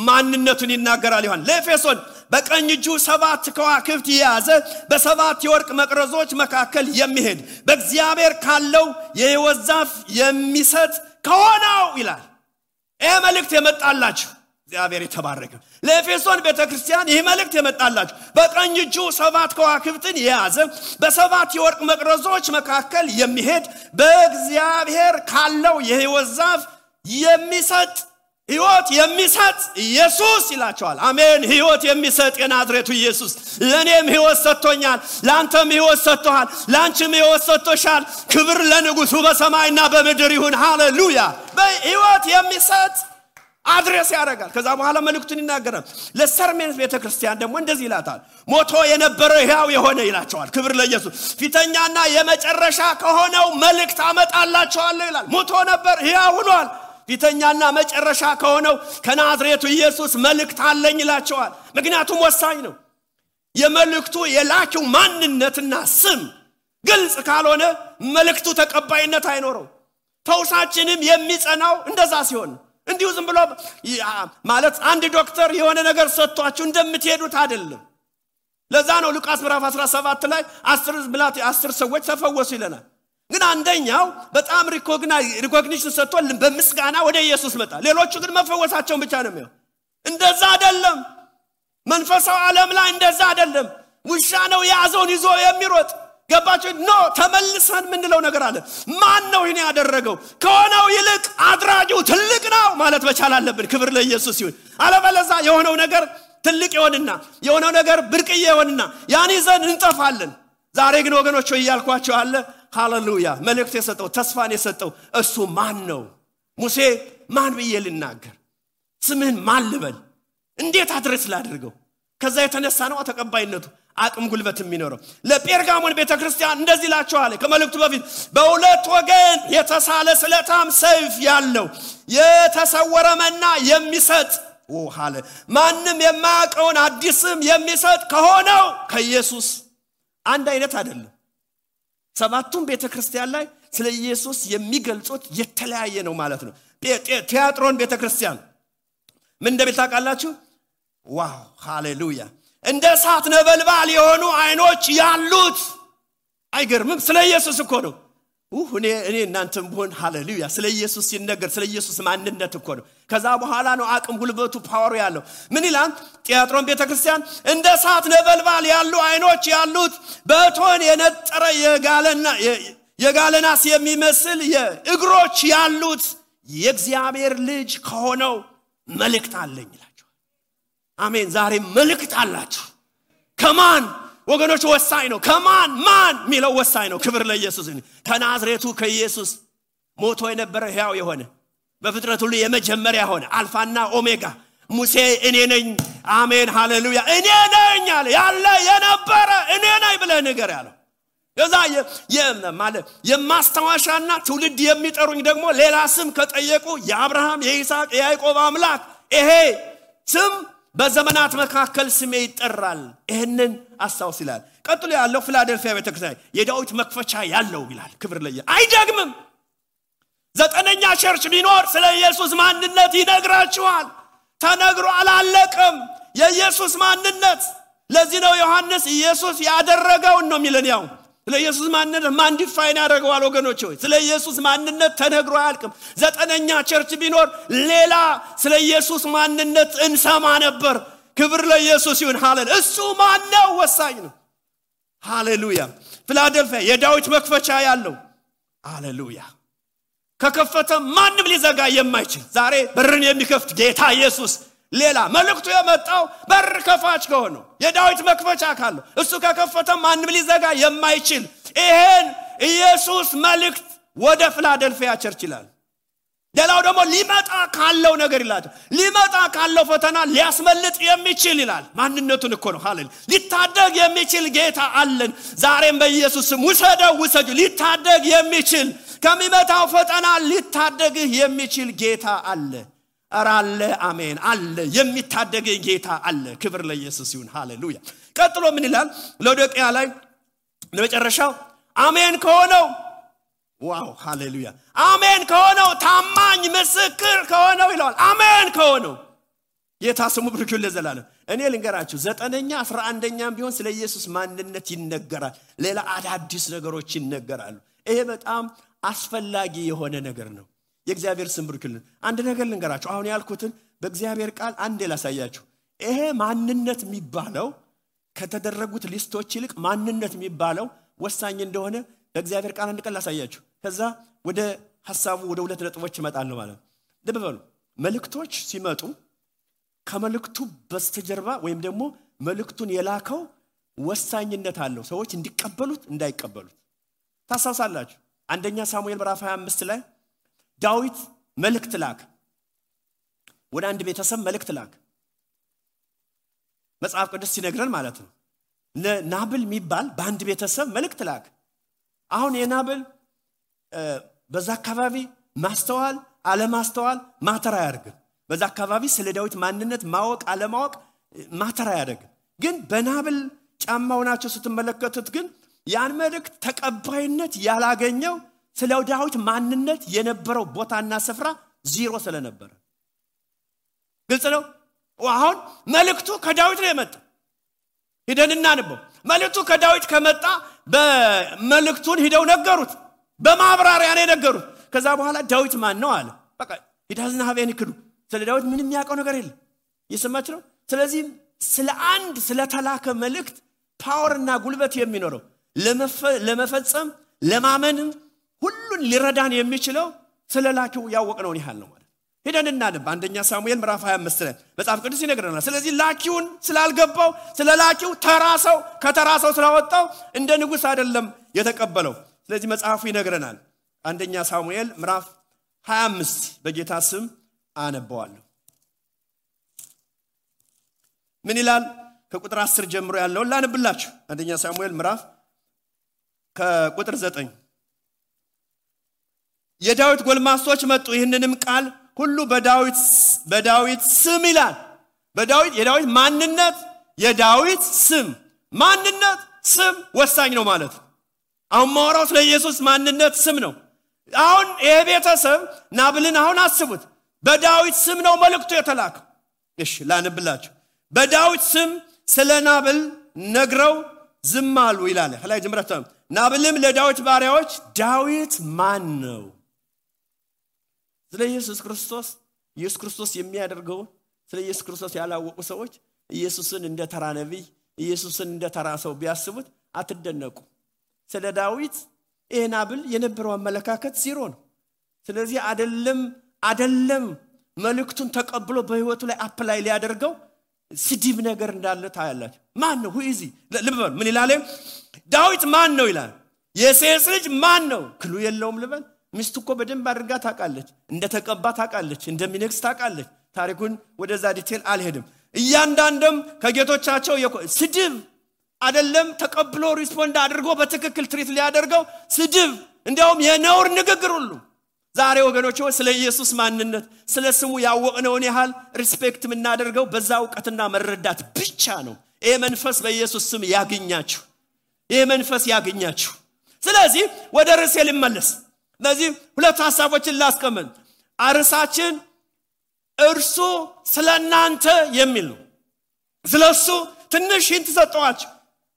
ማንነቱን ይናገራል ይሆን ለኤፌሶን በቀኝ እጁ 7 ከዋክብት የያዘ በ7 የወርቅ መቅረዞች መካከል የሚሄድ በእግዚአብሔር ካለው የሕይወት ዛፍ የሚሰጥ ከሆነው ይላል ይሄ መልእክት የመጣላችሁ እግዚአብሔር የተባረከ ለኤፌሶን ቤተክርስቲያን ይሄ መልእክት የመጣላችሁ በቀኝ እጁ 7 ከዋክብትን የያዘ በ7 የወርቅ መቅረዞች መካከል የሚሄድ በእግዚአብሔር ካለው የሕይወት ዛፍ የሚሰጥ ሕይወት የሚሰጥ ኢየሱስ ይላቸዋል አሜን ሕይወት የሚሰጥ የናዝሬቱ ኢየሱስ ለኔም ሕይወት ሰጥቶኛል ላንተም ሕይወት ሰጥቷል ላንቺም ሕይወት ሰጥቶሻል ክብር ለንጉሱ በሰማይና በምድር ይሁን ሃሌሉያ በሕይወት የሚሰጥ አድሬስ ያደርጋል ከዛ በኋላ መልእክቱን ይናገራል ለሰርሜንስ ቤተክርስቲያን ደግሞ እንደዚህ ይላታል ሞቶ የነበረ ሕያው የሆነ ይላቸዋል ክብር ለኢየሱስ ፊተኛና የመጨረሻ ከሆነው መልእክት አመጣላችኋለሁ ይላል ሞቶ ነበር ሕያው ሆኗል ፊተኛና መጨረሻ ከሆነው ከናዝሬቱ ኢየሱስ መልእክት አለኝ ይላቸዋል ምክንያቱም ወሳኝ ነው የመልእክቱ የላኪው ማንነትና ስም ግልጽ ካልሆነ መልእክቱ ተቀባይነት አይኖረው ተውሳችንም የሚጸናው እንደዛ ሲሆን እንዲሁ ዝም ብሎ ማለት አንድ ዶክተር የሆነ ነገር ሰጥቷችሁ እንደምትሄዱት አይደለም ለዛ ነው ሉቃስ ምዕራፍ 17 ላይ 10 ሰዎች ተፈወሱ ይለናል ግን አንደኛው በጣም ሪኮግኒሽን ሰጥቶ በምስጋና ወደ ኢየሱስ መጣ ሌሎቹ ግን መፈወሳቸውን ብቻ ነው የሚያው እንደዛ አይደለም መንፈሳዊ ዓለም ላይ እንደዛ አይደለም ውሻ ነው ያዘውን ይዞ የሚሮጥ ገባችሁ ኖ ተመልሰን ምንለው ነገር አለ ማን ነው ይሄን ያደረገው ከሆነው ይልቅ አድራጊው ትልቅ ነው ማለት መቻል አለብን ክብር ለኢየሱስ ይሁን አለበለዛ የሆነው ነገር ትልቅ ይሆንና የሆነው ነገር ብርቅዬ ይሆንና ያን ይዘን እንጠፋለን ዛሬ ግን ወገኖች ይያልኳቸው አለ ሃሌሉያ መልእክት የሰጠው ተስፋን የሰጠው እሱ ማን ነው ሙሴ ማን ብዬ ልናገር ስምህን ማን ልበል እንዴት አድርስ ላድርገው ከዛ የተነሳ ነው ተቀባይነቱ አቅም ጉልበት የሚኖረው ለጴርጋሞን ቤተክርስቲያን እንደዚህ ላቸዋል ከመልእክቱ በፊት በሁለት ወገን የተሳለ ስለታም ሰይፍ ያለው የተሰወረ መና የሚሰጥ ሃሌ ማንንም የማያውቀውን አዲስም የሚሰጥ ከሆነው ከኢየሱስ አንድ አይነት አይደለም ሰባቱም ቤተክርስቲያን ላይ ስለ ኢየሱስ የሚገልጹት የተለያየ ነው ማለት ነው ቲያጥሮን ቤተክርስቲያን ምን እንደምታውቃላችሁ ዋው ሃሌሉያ እንደ እሳት ነበልባል የሆኑ አይኖች ያሉት አይገርምም ስለ ኢየሱስ እኮ ነው እኔ እናንተም ቢሆን ሃሌሉያ ስለ ኢየሱስ ሲነገር ስለ ኢየሱስ ማንነት እኮ ነው ከዛ በኋላ ነው አቅም ጉልበቱ ፓወር ያለው ምን ይላል ቲያጥሮን ቤተክርስቲያን እንደ እሳት ነበልባል ያሉ አይኖች ያሉት በእቶን የነጠረ የጋለናስ የሚመስል የእግሮች ያሉት የእግዚአብሔር ልጅ ከሆነው መልእክት አለኝ ይላል አሜን ዛሬ መልእክት አላችሁ ከማን ወገኖች ወሳኝ ነው ከማን ማን ሚለው ወሳኝ ነው ክብር ለኢየሱስ ይሁን ከናዝሬቱ ከኢየሱስ ሞቶ የነበረ ሕያው የሆነ በፍጥረት ሁሉ የመጀመሪያ ሆነ አልፋና ኦሜጋ ሙሴ እኔ ነኝ አሜን ሃሌሉያ እኔ ነኝ ያለ የነበረ እኔ ነኝ ብለህ ነገር ያለው ከዛ ማለት የማስተዋሻና ትውልድ የሚጠሩኝ ደግሞ ሌላ ስም ከጠየቁ የአብርሃም የይስሐቅ የያዕቆብ አምላክ ይሄ ስም በዘመናት መካከል ስሜ ይጠራል ይሄንን አስተዋውስ ይላል ቀጥሎ ያለው ፊላዴልፊያ ቤተክርስቲያን የዳዊት መክፈቻ ያለው ይላል ክብር ለኢየሱስ አይደግምም ዘጠነኛ ቸርች ቢኖር ስለ ኢየሱስ ማንነት ይነግራችኋል ተነግሮ አላለቀም የኢየሱስ ማንነት ለዚህ ነው ዮሐንስ ኢየሱስ ያደረገው ነው የሚለን ያው ስለ ኢየሱስ ማንነት ማን ዲፋይን ያደርገዋል ወገኖች ሆይ ስለ ኢየሱስ ማንነት ተነግሮ አያልቅም ዘጠነኛ ቸርች ቢኖር ሌላ ስለ ኢየሱስ ማንነት እንሰማ ነበር ክብር ለኢየሱስ ይሁን ሃሌሉያ እሱ ማን ነው ወሳኝ ነው ሃሌሉያ ፊላዴልፊያ የዳዊት መክፈቻ ያለው ሃሌሉያ ከከፈተ ማንም ሊዘጋ የማይችል ዛሬ በርን የሚከፍት ጌታ ኢየሱስ ሌላ መልእክቱ የመጣው በር ከፋች ከሆነው የዳዊት መክፈቻ ካለው እሱ ከከፈተ ማንም ሊዘጋ የማይችል ይሄን ኢየሱስ መልእክት ወደ ፊላዴልፊያ ቸርች ይላል ሌላው ደግሞ ሊመጣ ካለው ነገር ይላል ሊመጣ ካለው ፈተና ሊያስመልጥ የሚችል ይላል ማንነቱን እኮ ነው ሃሌሉያ ሊታደግ የሚችል ጌታ አለን ዛሬም በኢየሱስ ስም ውሰዱ ሊታደግ የሚችል ከሚመጣው ፈተና ሊታደግህ የሚችል ጌታ አለ አራለ አሜን አለ የሚታደግ ጌታ አለ ክብር ለኢየሱስ ይሁን ሃሌሉያ ቀጥሎ ምን ይላል ሎዶቅያ ላይ ለመጨረሻው አሜን ከሆነው ዋው ሃሌሉያ አሜን ከሆነው ታማኝ ምስክር ከሆነው ይላል አሜን ከሆነው ጌታ ስሙ ብሩክ ይሁን ለዘላለም እኔ ልንገራችሁ 9ኛ 11ኛም ቢሆን ስለ ኢየሱስ ማንነት ይነገራል ሌላ አዳዲስ ነገሮች ይነገራሉ ይሄ በጣም አስፈላጊ የሆነ ነገር ነው የእግዚአብሔር ስም ብሩክ ይሁን አንድ ነገር ልንገራችሁ አሁን ያልኩትን በእግዚአብሔር ቃል አንዴ ላሳያችሁ ይሄ ማንነት የሚባለው ከተደረጉት ሊስቶች ይልቅ ማንነት የሚባለው ወሳኝ እንደሆነ በእግዚአብሔር ቃል አንድ ቀን ላሳያችሁ ከዛ ወደ ሐሳቡ ወደ ሁለት ነጥቦች ይመጣሉ ማለት ልብ በሉ መልእክቶች ሲመጡ ከመልእክቱ በስተጀርባ ወይም ደግሞ መልእክቱን የላከው ወሳኝነት አለው ሰዎች እንዲቀበሉት እንዳይቀበሉት ታሳሳላችሁ አንደኛ ሳሙኤል ምዕራፍ 25 ላይ ዳዊት መልእክት ላከ ወደ አንድ ቤተሰብ መልእክት ላከ መጽሐፍ ቅዱስ ሲነግረን ማለት ነው ለናብል የሚባል በአንድ ቤተሰብ መልእክት ላከ አሁን የናብል በዛ አካባቢ ማስተዋል አለማስተዋል ማተራ ያርግ በዛ አካባቢ ስለ ዳዊት ማንነት ማወቅ አለማወቅ ማተራ ያርግ ግን በናብል ጫማው ናቸው ስትመለከቱት ግን ያን መልእክት ተቀባይነት ያላገኘው ስለ ዳዊት ማንነት የነበረው ቦታና ስፍራ ዜሮ ስለነበረ ግልጽ ነው አሁን መልእክቱ ከዳዊት ነው የመጣው ሄደንና አንበው መልእክቱ ከዳዊት ከመጣ በመልእክቱን ሄደው ነገሩት በማብራሪያ ነው ነገሩት ከዛ በኋላ ዳዊት ማን ነው አለ በቃ ዳዝና ሀቤን ይክዱ ስለ ዳዊት ምንም ያውቀው ነገር የለም ይሰማች ነው ስለዚህ ስለ አንድ ስለ ተላከ መልእክት ፓወርና ጉልበት የሚኖረው ለመፈጸም ለማመን ሁሉን ሊረዳን የሚችለው ስለ ላኪው ያወቅነው ይሃል ነው ማለት ሄደንና አንደኛ ሳሙኤል ምዕራፍ 25 ላይ መጽሐፍ ቅዱስ ይነግረናል ስለዚህ ላኪውን ስላልገባው ስለ ላኪው ተራሰው ከተራሰው ስላወጣው እንደ ንጉስ አይደለም የተቀበለው ስለዚህ መጽሐፉ ይነግረናል አንደኛ ሳሙኤል ምዕራፍ 25 በጌታ ስም አነባዋለሁ ምን ይላል ከቁጥር 10 ጀምሮ ያለው ላንብላችሁ አንደኛ ሳሙኤል ምዕራፍ ከቁጥር 9 የዳዊት ጎልማሶች መጡ ይህንንም ቃል ሁሉ በዳዊት ስም ይላል የዳዊት ማንነት የዳዊት ስም ማንነት ስም ወሳኝ ነው ማለት አሁን ማወራው ስለ ኢየሱስ ማንነት ስም ነው አሁን የቤተሰብ ናብልን አሁን አስቡት በዳዊት ስም ነው መልእክቱ የተላከው እሺ ላንብላችሁ በዳዊት ስም ስለ ናብል ነግረው ዝም አሉ ይላል ላይ ጀምራችሁ ናብልም ለዳዊት ባሪያዎች ዳዊት ማን ነው ስለ ኢየሱስ ክርስቶስ የሚያደርገው ስለ ኢየሱስ ክርስቶስ ያላወቁ ሰዎች ኢየሱስን እንደ ተራ ነብይ ኢየሱስን እንደ ተራ ሰው ቢያስቡት አትደነቁ ስለ ዳዊት ናብል የነበረው አመለካከት ዜሮ ነው ስለዚህ አይደለም መልእክቱን ተቀብሎ በህይወቱ ላይ አፕላይ ሊያደርገው ስዲብ ነገር እንዳለ ታያላችሁ ማን ነው ሁይዚ ልበል ምን ይላል ዳዊት ማን ነው ይላል የሴስ ልጅ ማን ነው ክሉ የለውም ልበል ሚስቱ እኮ በደንብ አድርጋ ታውቃለች እንደተቀባ ታውቃለች እንደሚነክስ ታውቃለች ታሪኩን ወደዛ ዲቴል አልሄድም እያንዳንዱም ከጌቶቻቸው ስድብ አይደለም ተቀብሎ ሪስፖንድ አድርጎ በትክክል ትሪት ሊያደርገው ስድብ እንደውም የነውር ንግግር ሁሉ ዛሬ ወገኖች ስለ ኢየሱስ ማንነት ስለ ስሙ ያወቅነውን ያህል ሪስፔክት ምናደርገው በዛ ዕውቀትና መረዳት ብቻ ነው ይሄ መንፈስ በኢየሱስ ስም ያገኛችሁ ይሄ መንፈስ ያገኛችሁ ስለዚህ ወደ ርዕሴ ልመለስ ስለዚህ ሁለት ሐሳቦችን ላስቀምጥ አርሳችን እርሱ ስለናንተ የሚል ነው ስለሱ ትንሽ hinት ሰጠዋችሁ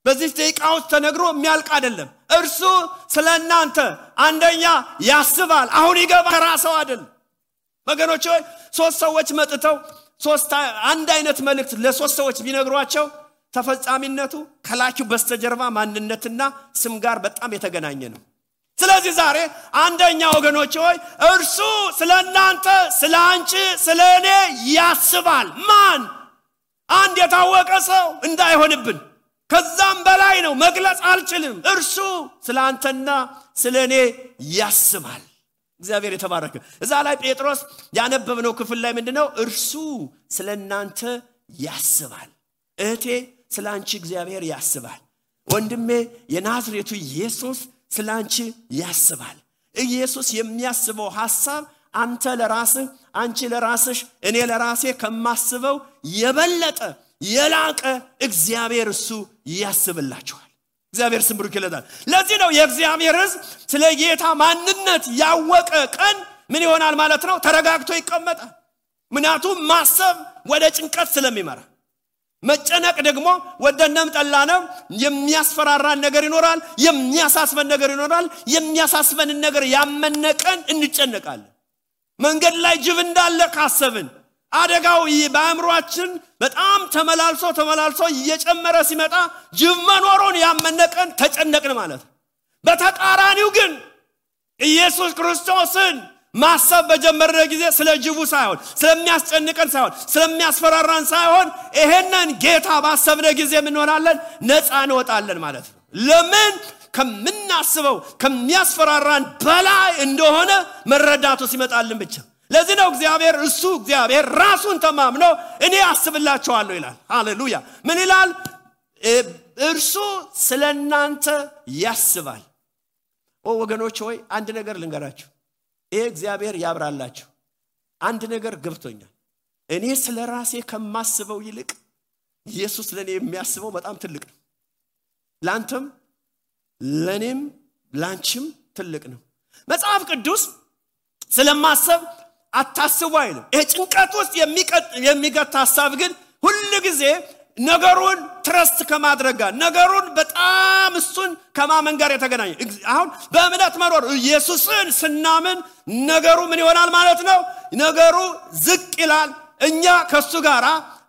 በዚህ ደቂቃው ተነግሮ የሚያልቅ አይደለም እርሱ ስለናንተ አንደኛ ያስባል አሁን ይገባ ራስው አይደል ወገኖች ሶስት ሰዎች መጥተው አንድ አይነት መልእክት ለሶስት ሰዎች ቢነግሯቸው ተፈጻሚነቱ ከላኪው በስተጀርባ ማንነትና ስም ጋር በጣም የተገናኘ ነው ስለዚህ ዛሬ አንደኛ ወገኖች እርሱ ስለናንተ ስላንቺ ስለኔ ያስባል ማን አንድ የታወቀ ሰው እንዳይሆንብን ከዛም በላይ ነው መግለጽ አልችልም እርሱ ስላንተና ስለኔ ያስባል እግዚአብሔር የተባረከ። እዛ ላይ ጴጥሮስ ያነበብነው ክፍል ላይ ምንድነው? እርሱ ስለናንተ ያስባል። እህቴ ስላንቺ እግዚአብሔር ያስባል። ወንድሜ የናዝሬቱ ኢየሱስ ስላንቺ ያስባል። ኢየሱስ የሚያስበው ሐሳብ አንተ ለራስህ፣ አንቺ ለራስሽ፣ እኔ ለራሴ ከማስበው የበለጠ የላቀ እግዚአብሔር እሱ ያስብላችኋል። እግዚአብሔር ስም ብሩክ ይለታል። ለዚህ ነው የእግዚአብሔር ሕዝብ ስለ ጌታ ማንነት ያወቀ ቀን ምን ይሆናል ማለት ነው? ተረጋግቶ ይቀመጣል። ምክንያቱም ማሰብ ወደ ጭንቀት ስለሚመራ፣ መጨነቅ ደግሞ ወደነም ጠላነም የሚያስፈራራን ነገር ይኖራል፣ የሚያሳስበን ነገር ይኖራል። የሚያሳስበን ነገር ያመነቀን እንጨነቃለን። መንገድ ላይ ጅብ እንዳለ ካሰብን አደጋው በአእምሮአችን በጣም ተመላልሶ እየጨመረ ሲመጣ ጅብ መኖሩን ያመነቀን ተጨነቅን ማለት ነው። በተቃራኒው ግን ኢየሱስ ክርስቶስን ማሰብ በጀመረ ጊዜ ስለ ጅቡ ሳይሆን ስለሚያስጨንቀን ሳይሆን ስለሚያስፈራራን ሳይሆን ይሄንን ጌታ ባሰብነ ጊዜ ምን ሆናለን? ነፃ እንወጣለን ማለት ነው። ለምን? ከምናስበው ከሚያስፈራራን በላይ እንደሆነ መረዳቱ ሲመጣልን ብቻ። ለዚህ ነው እግዚአብሔር ራሱን ተማምኖ እኔ አስብላችኋለሁ ይላል። ሃሌሉያ። ምን ይላል? እርሱ ስለናንተ ያስባል። ወገኖች ሆይ አንድ ነገር ልንገራችሁ። ይሄ እግዚአብሔር ያብራላችሁ። አንድ ነገር ገብቶኛል። እኔ ስለራሴ ከማስበው ይልቅ ኢየሱስ ለኔ የሚያስበው በጣም ትልቅ ነው። ላንተም ለኔም ላንቺም ትልቅ ነው። መጽሐፍ ቅዱስ ስለማሰብ አታስቡ አይልም። ይሄ ጭንቀት ውስጥ የሚገታ ሐሳብ ግን ሁሉ ጊዜ ነገሩን ትረስት ከማድረግ ጋር ነገሩን በጣም እሱን ከማመን ጋር የተገናኘ። አሁን በእምነት መኖር ኢየሱስን ስናምን ነገሩ ምን ይሆናል ማለት ነው? ነገሩ ዝቅ ይላል። እኛ ከሱ ጋራ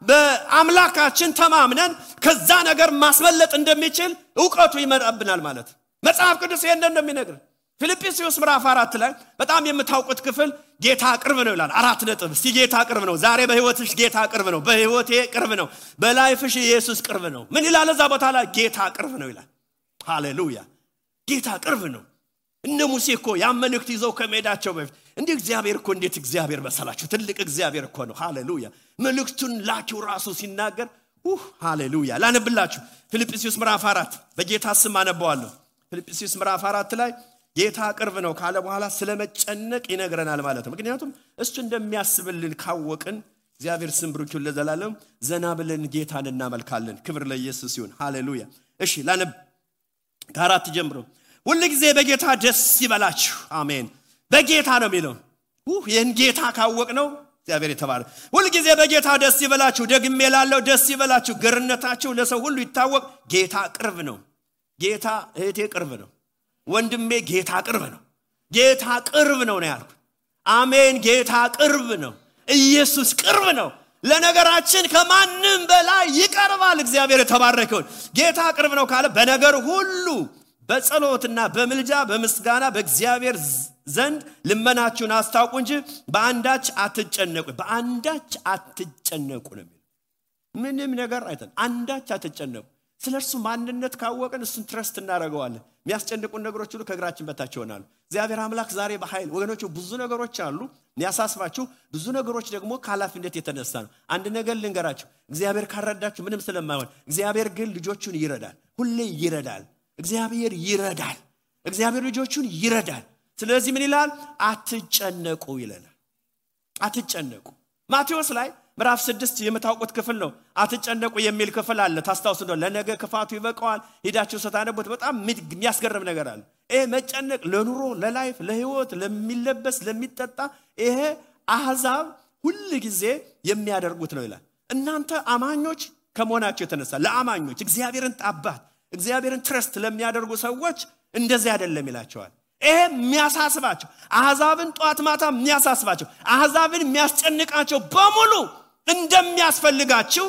በአምላካችን ተማምነን ከዛ ነገር ማስመለጥ እንደሚችል ዕውቀቱ ይመጣብናል ማለት ነው። መጽሐፍ ቅዱስ ይሄን እንደሚነግር ፊልጵስዩስ ምዕራፍ 4 ላይ በጣም የምታውቁት ክፍል ጌታ ቅርብ ነው ይላል። 4 ነጥብ። እስቲ ጌታ ቅርብ ነው። ዛሬ በህይወትሽ ጌታ ቅርብ ነው። በህይወቴ ቅርብ ነው። በላይፍሽ ኢየሱስ ቅርብ ነው። ምን ይላል እዛ ቦታ ላይ? ጌታ ቅርብ ነው ይላል። ሃሌሉያ። ጌታ ቅርብ ነው። እነ ሙሴ እኮ ያመልክት ይዘው ከመሄዳቸው በፊት እንዲህ እግዚአብሔር እኮ እንዴት እግዚአብሔር መሰላችሁ? ትልቅ እግዚአብሔር እኮ ነው። ሃሌሉያ። መልእክቱን ላኪው ራሱ ሲናገር ሃሌሉያ። ላነብላችሁ ፊልጵስዩስ ምዕራፍ 4 በጌታ ስም አነባዋለሁ። ፊልጵስዩስ ምዕራፍ 4 ላይ ጌታ ቅርብ ነው ካለ በኋላ ስለመጨነቅ ይነግረናል ማለት ነው። ምክንያቱም እሱ እንደሚያስብልን ካወቅን እግዚአብሔር ስም ብሩክ ይሁን ለዘላለም ዘና ብለን ጌታን እናመልካለን። ክብር ለኢየሱስ ይሁን። ሃሌሉያ። እሺ ላነብ ከ4 ጀምሮ። ሁሉ ጊዜ በጌታ ደስ ይበላችሁ። አሜን። በጌታ ነው የሚለው። ይህን ጌታ ካወቅነው እግዚአብሔር የተባረከ። ሁሉ ጊዜ በጌታ ደስ ይበላችሁ። ደግሜ እላለሁ ደስ ይበላችሁ። ገርነታችሁ ለሰው ሁሉ ይታወቅ። ጌታ ቅርብ ነው። ጌታ እህቴ ቅርብ ነው። ወንድሜ ጌታ ቅርብ ነው። ጌታ ቅርብ ነው ያልኩት። አሜን። ጌታ ቅርብ ነው። ኢየሱስ ቅርብ ነው። ለነገራችን ከማንም በላይ ይቀርባል። እግዚአብሔር የተባረከ ይሁን። ጌታ ቅርብ ነው ካለ በነገር ሁሉ በጸሎትና በምልጃ በምስጋና በእግዚአብሔር ዘንድ ልመናችሁን አስታውቁ እንጂ በአንዳች አትጨነቁ። በአንዳች አትጨነቁ ነው የሚለው። ምንም ነገር አይተን አንዳች አትጨነቁ። ስለርሱ ማንነት ካወቅን እሱን ትረስት እናደርገዋለን። የሚያስጨንቁን ነገሮች ሁሉ ከእግራችን በታች ይሆናሉ። እግዚአብሔር አምላክ ዛሬ በኃይል ወገኖች ብዙ ነገሮች አሉ የሚያሳስባችሁ። ብዙ ነገሮች ደግሞ ከኃላፊነት የተነሳ ነው። አንድ ነገር ልንገራችሁ። እግዚአብሔር ካረዳችሁ ምንም ስለማይሆን፣ እግዚአብሔር ግን ልጆቹን ይረዳል። ሁሌ ይረዳል። እግዚአብሔር ይረዳል። እግዚአብሔር ልጆቹን ይረዳል። ስለዚህ ምን ይላል? አትጨነቁ ይለናል። አትጨነቁ። ማቴዎስ ላይ ምዕራፍ 6 የምታውቁት ክፍል ነው። አትጨነቁ የሚል ክፍል አለ። ታስታውሱ ነው። ለነገ ክፋቱ ይበቃዋል። ሄዳችሁ ስታነቡት በጣም የሚያስገርም ነገር አለ። ይሄ መጨነቅ ለኑሮ፣ ለላይፍ፣ ለህይወት፣ ለሚለበስ፣ ለሚጠጣ ይሄ አህዛብ ሁሉ ጊዜ የሚያደርጉት ነው ይላል። እናንተ አማኞች ከመሆናችሁ የተነሳ ለአማኞች እግዚአብሔርን አባት እግዚአብሔርን ትረስት ለሚያደርጉ ሰዎች እንደዚህ አይደለም ይላቸዋል። ይሄ የሚያሳስባቸው አህዛብን ጧት ማታ የሚያሳስባቸው አህዛብን የሚያስጨንቃቸው በሙሉ እንደሚያስፈልጋችሁ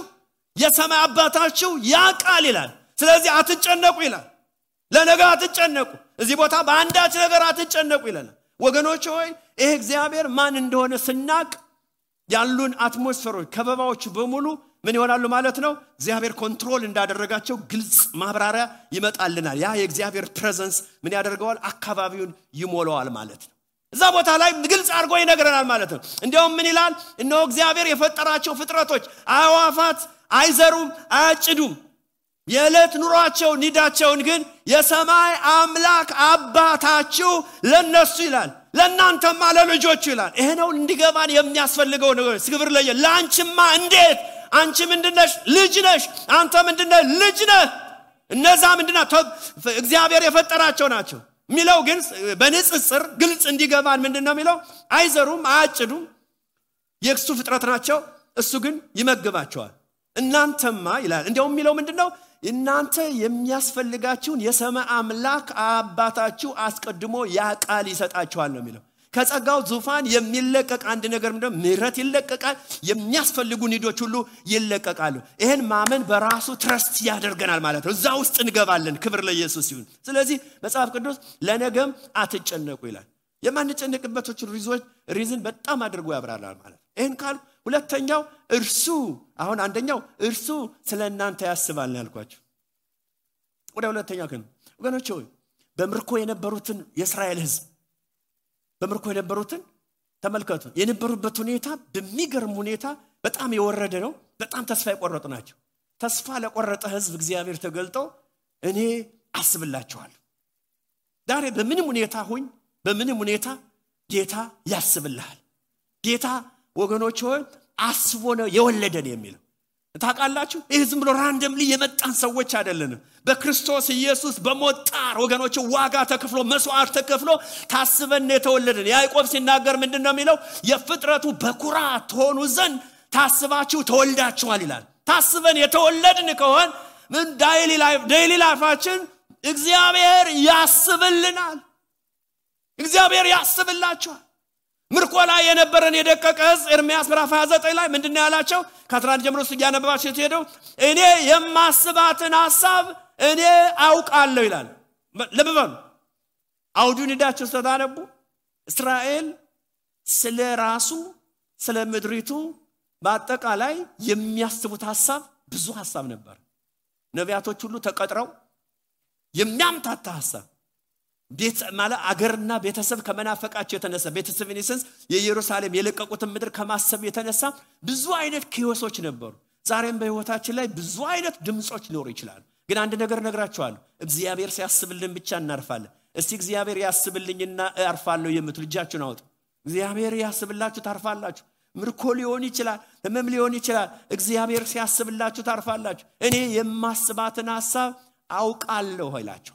የሰማይ አባታችሁ ያውቃል ይላል። ስለዚህ አትጨነቁ ይላል። ለነገ አትጨነቁ። እዚህ ቦታ በአንዳች ነገር አትጨነቁ ይላል። ወገኖች ሆይ ይሄ እግዚአብሔር ማን እንደሆነ ስናቅ ያሉን አትሞስፌሮች ከበባዎች በሙሉ ምን ይሆናሉ ማለት ነው? እግዚአብሔር ኮንትሮል እንዳደረጋቸው ግልጽ ማብራሪያ ይመጣልናል። ያ የእግዚአብሔር ፕሬዘንስ ምን ያደርገዋል? አካባቢውን ይሞላዋል ማለት ነው። እዛ እዛ ቦታ ላይ ግልጽ አድርጎ ይነግረናል ማለት ነው። እንዲያውም ምን ይላል? እነሆ እግዚአብሔር የፈጠራቸው ፍጥረቶች አዕዋፋት አይዘሩም አያጭዱም፣ የዕለት ኑሯቸው ኒዳቸውን ግን የሰማይ አምላክ አባታችሁ ለነሱ ይላል፣ ለእናንተማ ለልጆቹ ይላል። ይሄ ነው እንዲገባን የሚያስፈልገው ነገር። ክብር ለየ ለአንቺማ እንዴት አንቺ ምንድነሽ? ልጅ ነሽ። አንተ ምንድነህ? ልጅ ነህ። እነዛ ምንድነው? እግዚአብሔር የፈጠራቸው ናቸው ሚለው ግን በንጽጽር ግልጽ እንዲገባን ምንድነው ሚለው? አይዘሩም አያጭዱም፣ የእሱ ፍጥረት ናቸው፣ እሱ ግን ይመግባቸዋል። እናንተማ ይላል እንዲያውም ሚለው ምንድነው? እናንተ የሚያስፈልጋችሁን የሰማይ አምላክ አባታችሁ አስቀድሞ ያቃል ይሰጣችኋል ነው ሚለው። ከጸጋው ዙፋን የሚለቀቅ አንድ ነገር ምንድነው? ምህረት ይለቀቃል። የሚያስፈልጉ ኒዶች ሁሉ ይለቀቃሉ። ይሄን ማመን በራሱ ትረስት ያደርገናል ማለት ነው። እዛ ውስጥ እንገባለን። ክብር ለኢየሱስ ይሁን። ስለዚህ መጽሐፍ ቅዱስ ለነገም አትጨነቁ ይላል። የማንጨነቅበት ሪዝን በጣም አድርጎ ያብራራል ማለት ነው። ይሄን ካል ሁለተኛው እርሱ አሁን አንደኛው እርሱ ስለእናንተ ያስባል ያልኳችሁ። ወደ ሁለተኛው ግን ወገኖች ሆይ በምርኮ የነበሩትን የእስራኤል ሕዝብ በምርኮ የነበሩትን ተመልከቱ። የነበሩበት ሁኔታ በሚገርም ሁኔታ በጣም የወረደ ነው። በጣም ተስፋ የቆረጡ ናቸው። ተስፋ ለቆረጠ ሕዝብ እግዚአብሔር ተገልጦ እኔ አስብላችኋለሁ። ዛሬ በምንም ሁኔታ ሁኝ፣ በምንም ሁኔታ ጌታ ያስብልሃል። ጌታ ወገኖች ሆይ አስቦ ነው የወለደን የሚለው ታውቃላችሁ። ይህ ዝም ብሎ ራንደምሊ የመጣን ሰዎች አይደለንም። በክርስቶስ ኢየሱስ በሞጣር ወገኖች ዋጋ ተከፍሎ መስዋዕት ተከፍሎ ታስበን የተወለደን። ያዕቆብ ሲናገር ምንድነው የሚለው? የፍጥረቱ በኩራት ሆኑ ዘንድ ታስባችሁ ተወልዳችኋል ይላል። ታስበን የተወለድን ከሆነ ምን ዴይሊ ላይፋችን እግዚአብሔር ያስብልናል። እግዚአብሔር ያስብላችኋል። ምርኮ ላይ የነበረን የደቀቀ ሕዝብ ኤርምያስ ምዕራፍ 29 ላይ ምንድነው ያላቸው? ከ11 ጀምሮ ሲያነባባቸው ሲሄደው እኔ የማስባትን ሐሳብ እኔ አውቃለሁ ይላል። ለበበሉ አውዱን ሄዳችሁ ስታነቡ እስራኤል ስለ ራሱ ስለ ምድሪቱ በአጠቃላይ የሚያስቡት ሐሳብ ብዙ ሐሳብ ነበር። ነቢያቶች ሁሉ ተቀጥረው የሚያምታታ ሐሳብ ቤት ማለት አገርና ቤተሰብ ከመናፈቃቸው የተነሳ ቤተሰብ ኢንሰንስ የኢየሩሳሌም የለቀቁትን ምድር ከማሰብ የተነሳ ብዙ አይነት ኪዮሶች ነበሩ። ዛሬም በህይወታችን ላይ ብዙ አይነት ድምጾች ሊኖሩ ይችላሉ። ግን አንድ ነገር ነግራችኋለሁ፣ እግዚአብሔር ሲያስብልን ብቻ እናርፋለን። እስቲ እግዚአብሔር ያስብልኝና አርፋለሁ የምትሉ እጃችሁን አውጡ። እግዚአብሔር ያስብላችሁ ታርፋላችሁ። ምርኮ ሊሆን ይችላል፣ ህመም ሊሆን ይችላል። እግዚአብሔር ሲያስብላችሁ ታርፋላችሁ። እኔ የማስባትን ሐሳብ አውቃለሁ ይላችሁ።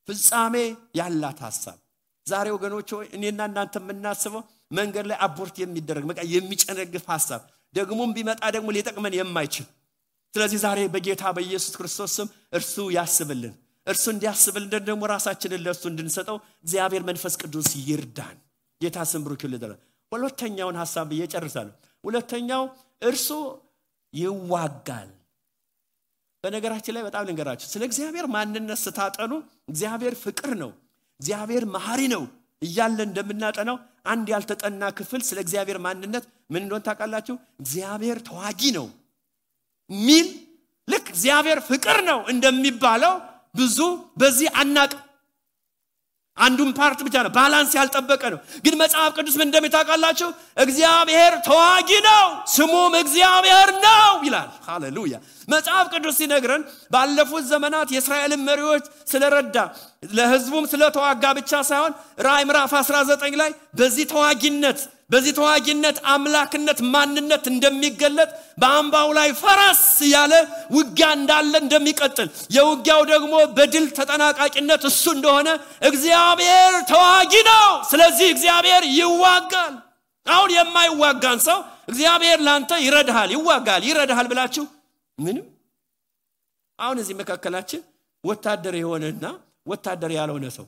ፍጻሜ ያላት ሐሳብ። ዛሬ ወገኖች ሆይ እኔና እናንተ የምናስበው መንገድ ላይ አቦርት የሚደረግ በቃ የሚጨነግፍ ሐሳብ ደግሞም ቢመጣ ደግሞ ሊጠቅመን የማይችል። ስለዚህ ዛሬ በጌታ በኢየሱስ ክርስቶስ ስም እርሱ ያስብልን። እርሱ እንዲያስብልን ደግሞ ራሳችንን ለእርሱ እንድንሰጠው እግዚአብሔር መንፈስ ቅዱስ ይርዳን። ጌታ ስም ብሩክ ይሁን። ሁለተኛውን ሐሳብ እየጨርሳለሁ። ሁለተኛው እርሱ ይዋጋል። በነገራችን ላይ በጣም ልንገራችሁ፣ ስለ እግዚአብሔር ማንነት ስታጠኑ እግዚአብሔር ፍቅር ነው፣ እግዚአብሔር መሐሪ ነው እያለ እንደምናጠናው አንድ ያልተጠና ክፍል ስለ እግዚአብሔር ማንነት ምን እንደሆነ ታውቃላችሁ? እግዚአብሔር ተዋጊ ነው ሚል ልክ እግዚአብሔር ፍቅር ነው እንደሚባለው ብዙ በዚህ አናቅ። አንዱን ፓርት ብቻ ነው ባላንስ ያልጠበቀ ነው። ግን መጽሐፍ ቅዱስ ምን እንደሚታውቃላችሁ? እግዚአብሔር ተዋጊ ነው ስሙም እግዚአብሔር ነው ይላል። ሃሌሉያ። መጽሐፍ ቅዱስ ሲነግረን ባለፉት ዘመናት የእስራኤልን መሪዎች ስለረዳ ለሕዝቡም ስለተዋጋ ብቻ ሳይሆን ራዕይ ምዕራፍ 19 ላይ በዚህ ተዋጊነት አምላክነት ማንነት እንደሚገለጥ በአምባው ላይ ፈረስ ያለ ውጊያ እንዳለ እንደሚቀጥል የውጊያው ደግሞ በድል ተጠናቃቂነት እሱ እንደሆነ እግዚአብሔር ተዋጊ ነው። ስለዚህ እግዚአብሔር ይዋጋል። አሁን የማይዋጋን ሰው እግዚአብሔር ላንተ ይረዳሃል ብላችሁ ምንም አሁን እዚህ መካከላችን ወታደር የሆነና ወታደር ያልሆነ ሰው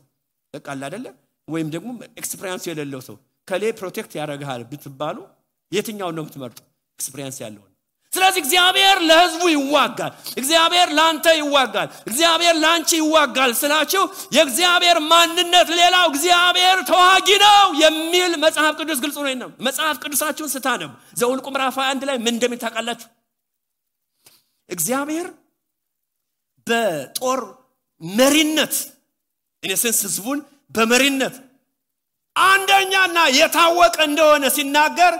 ተቃል አይደለ ወይም ደግሞ ኤክስፒሪየንስ የሌለው ሰው ከሌ ፕሮቴክት ያደርጋል ብትባሉ የትኛው ነው የምትመርጡ? ኤክስፒሪየንስ ያለው። ስለዚህ እግዚአብሔር ለሕዝቡ ይዋጋል፣ እግዚአብሔር ላንተ ይዋጋል፣ እግዚአብሔር ላንቺ ይዋጋል ስላችሁ የእግዚአብሔር ማንነት ሌላው እግዚአብሔር ተዋጊ ነው የሚል መጽሐፍ ቅዱስ ግልጽ ነው። መጽሐፍ ቅዱሳችሁን ስታነቡ ዘኍልቍ ምዕራፍ 21 ላይ ምን እንደሚታውቃላችሁ? እግዚአብሔር በጦር መሪነት ኢንሰንስ ሕዝቡን በመሪነት አንደኛና የታወቀ እንደሆነ ሲናገር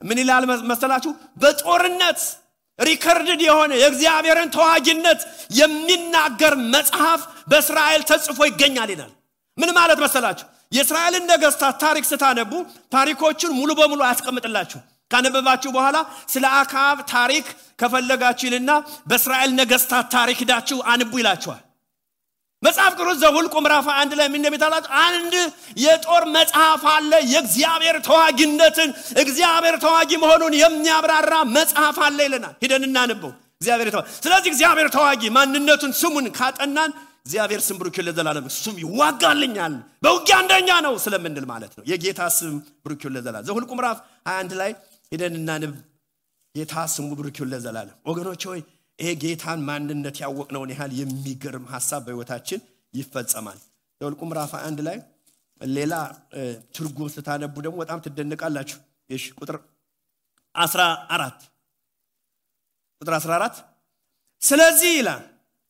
ምን ይላል መሰላችሁ? በጦርነት ሪከርድድ የሆነ የእግዚአብሔርን ተዋጊነት የሚናገር መጽሐፍ በእስራኤል ተጽፎ ይገኛል ይላል። ምን ማለት መሰላችሁ? የእስራኤልን ነገስታት ታሪክ ስታነቡ ታሪኮችን ሙሉ በሙሉ አያስቀምጥላችሁ። ካነበባችሁ በኋላ ስለ አክዓብ ታሪክ ከፈለጋችሁ ይልና በእስራኤል ነገስታት ታሪክ ሄዳችሁ አንቡ ይላችኋል። መጽሐፍ ቅዱስ ዘኍልቍ ምዕራፍ 1 ላይ ምን እንደሚታላችሁ አንድ የጦር መጽሐፍ አለ። የእግዚአብሔር ተዋጊነትን እግዚአብሔር ተዋጊ መሆኑን የሚያብራራ መጽሐፍ አለ ይለናል። ሄደን እናንበው። እግዚአብሔር ተዋጊ። ስለዚህ እግዚአብሔር ተዋጊ ማንነቱን ስሙን ካጠናን እግዚአብሔር ስም ብሩክ ለዘላለም ስም ይዋጋልኛል በውጊያ አንደኛ ነው ስለምንል ማለት ነው። የጌታ ስም ብሩክ ለዘላለም ዘኍልቍ ምዕራፍ 21 ላይ ሄደን እናንብ። ጌታ ስሙ ብሩክ ለዘላለም። ወገኖች ሆይ ይሄ ጌታን ማንነት ያወቅነውን ያህል የሚገርም ሐሳብ በህይወታችን ይፈጸማል። ዘኍልቍ ምዕራፍ 1 ላይ ሌላ ትርጉም ስታነቡ ደግሞ በጣም ትደነቃላችሁ። እሺ ቁጥር 14 ስለዚህ ይላል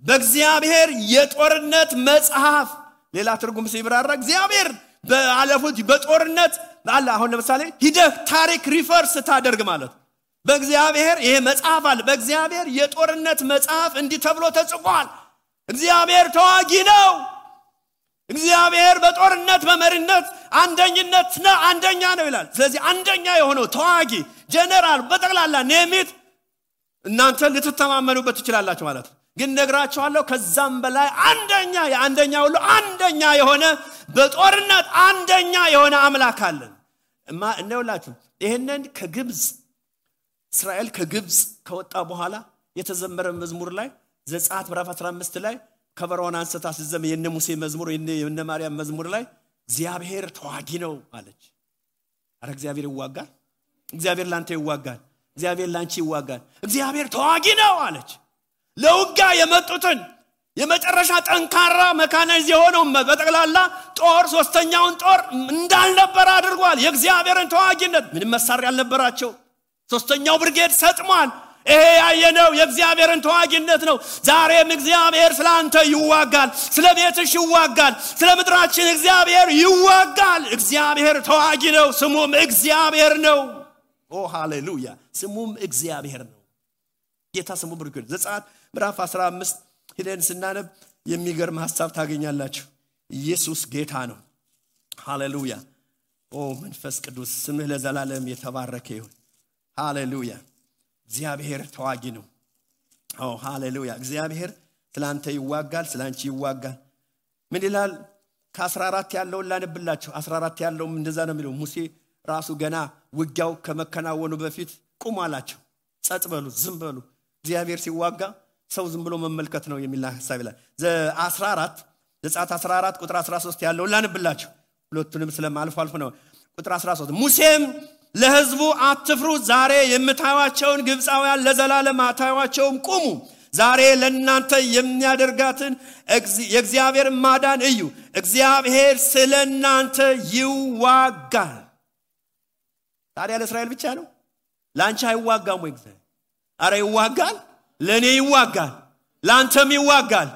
በእግዚአብሔር የጦርነት መጽሐፍ ሌላ ትርጉም ሲብራራ እግዚአብሔር በአለፉት በጦርነት አለ። አሁን ለምሳሌ ሂደህ ታሪክ ሪፈርስ ታደርግ ማለት በእግዚአብሔር ይሄ መጽሐፍ አለ። በእግዚአብሔር የጦርነት መጽሐፍ እንዲህ ተብሎ ተጽፏል። እግዚአብሔር ተዋጊ ነው። እግዚአብሔር በጦርነት በመሪነት አንደኛ ነው ይላል። ስለዚህ አንደኛ የሆነው ተዋጊ ጀነራል በጠቅላላ ኔሚት እናንተ ልትተማመኑበት ትችላላችሁ ማለት ነው። ግን ነግራችኋለሁ ከዛም በላይ አንደኛ ሁሉ አንደኛ የሆነ በጦርነት አንደኛ የሆነ አምላክ አለን። እንደውላችሁ ይሄንን ከግብጽ እስራኤል ከግብጽ ከወጣ በኋላ የተዘመረ መዝሙር ላይ ዘጸአት ምዕራፍ 15 ላይ ከበሮን አንስታ ሲዘም የነ ሙሴ መዝሙር የነ ማርያም መዝሙር ላይ እግዚአብሔር ተዋጊ ነው አለች። አረ እግዚአብሔር ይዋጋል። እግዚአብሔር ላንተ ይዋጋል። እግዚአብሔር ላንቺ ይዋጋል። እግዚአብሔር ተዋጊ ነው አለች። ለውጋ የመጡትን የመጨረሻ ጠንካራ መካናይዝ የሆነው በጠቅላላ ጦር ሶስተኛውን ጦር እንዳልነበር አድርጓል። የእግዚአብሔርን ተዋጊነት ምንም መሳሪያ ያልነበራቸው ሶስተኛው ብርጌድ ሰጥሟል። ይሄ ያየነው የእግዚአብሔርን ተዋጊነት ነው። ዛሬም እግዚአብሔር ስላንተ ይዋጋል፣ ስለቤትሽ ይዋጋል፣ ስለምድራችን እግዚአብሔር ይዋጋል። እግዚአብሔር ተዋጊ ነው። ስሙም እግዚአብሔር ነው። ኦ ሃሌሉያ! ስሙም እግዚአብሔር ነው። ጌታ ስሙ ብሩክ ይሁን። ዘጸአት ምዕራፍ 15 ሄደን ስናነብ የሚገርም ሐሳብ ታገኛላችሁ። ኢየሱስ ጌታ ነው። ሃሌሉያ! ኦ መንፈስ ቅዱስ ስምህ ለዘላለም የተባረከ ይሁን። ሃሌሉያ! እግዚአብሔር ተዋጊ ነው። ኦ ሃሌሉያ! እግዚአብሔር ስላንተ ይዋጋል፣ ስላንቺ ይዋጋል። ምን ይላል? ከ14 ያለውን ላነብላችሁ። 14 ያለው እንደዛ ነው የሚለው። ሙሴ ራሱ ገና ውጊያው ከመከናወኑ በፊት ቁሙ አላቸው። ጸጥ በሉ፣ ዝም በሉ። እግዚአብሔር ሲዋጋ ሰው ዝም ብሎ መመልከት ነው የሚል ሐሳብ ይላል። ዘጸአት 14 ቁጥር 13 ያለውን ላነብላችሁ። ሁለቱንም ስለማልፎ ነው። ቁጥር 13 ሙሴም ለሕዝቡ አትፍሩ፣ ዛሬ የምታዩዋቸውን ግብፃውያን ለዘላለም አታዩዋቸውም። ቁሙ፣ ዛሬ ለእናንተ የሚያደርጋትን የእግዚአብሔር ማዳን እዩ። እግዚአብሔር ስለእናንተ ይዋጋል። ታዲያ ለእስራኤል ብቻ ነው? ላንቺ አይዋጋም ወይ? እግዚአብሔር አረ ይዋጋል። ለኔ ይዋጋል፣ ላንተም ይዋጋል።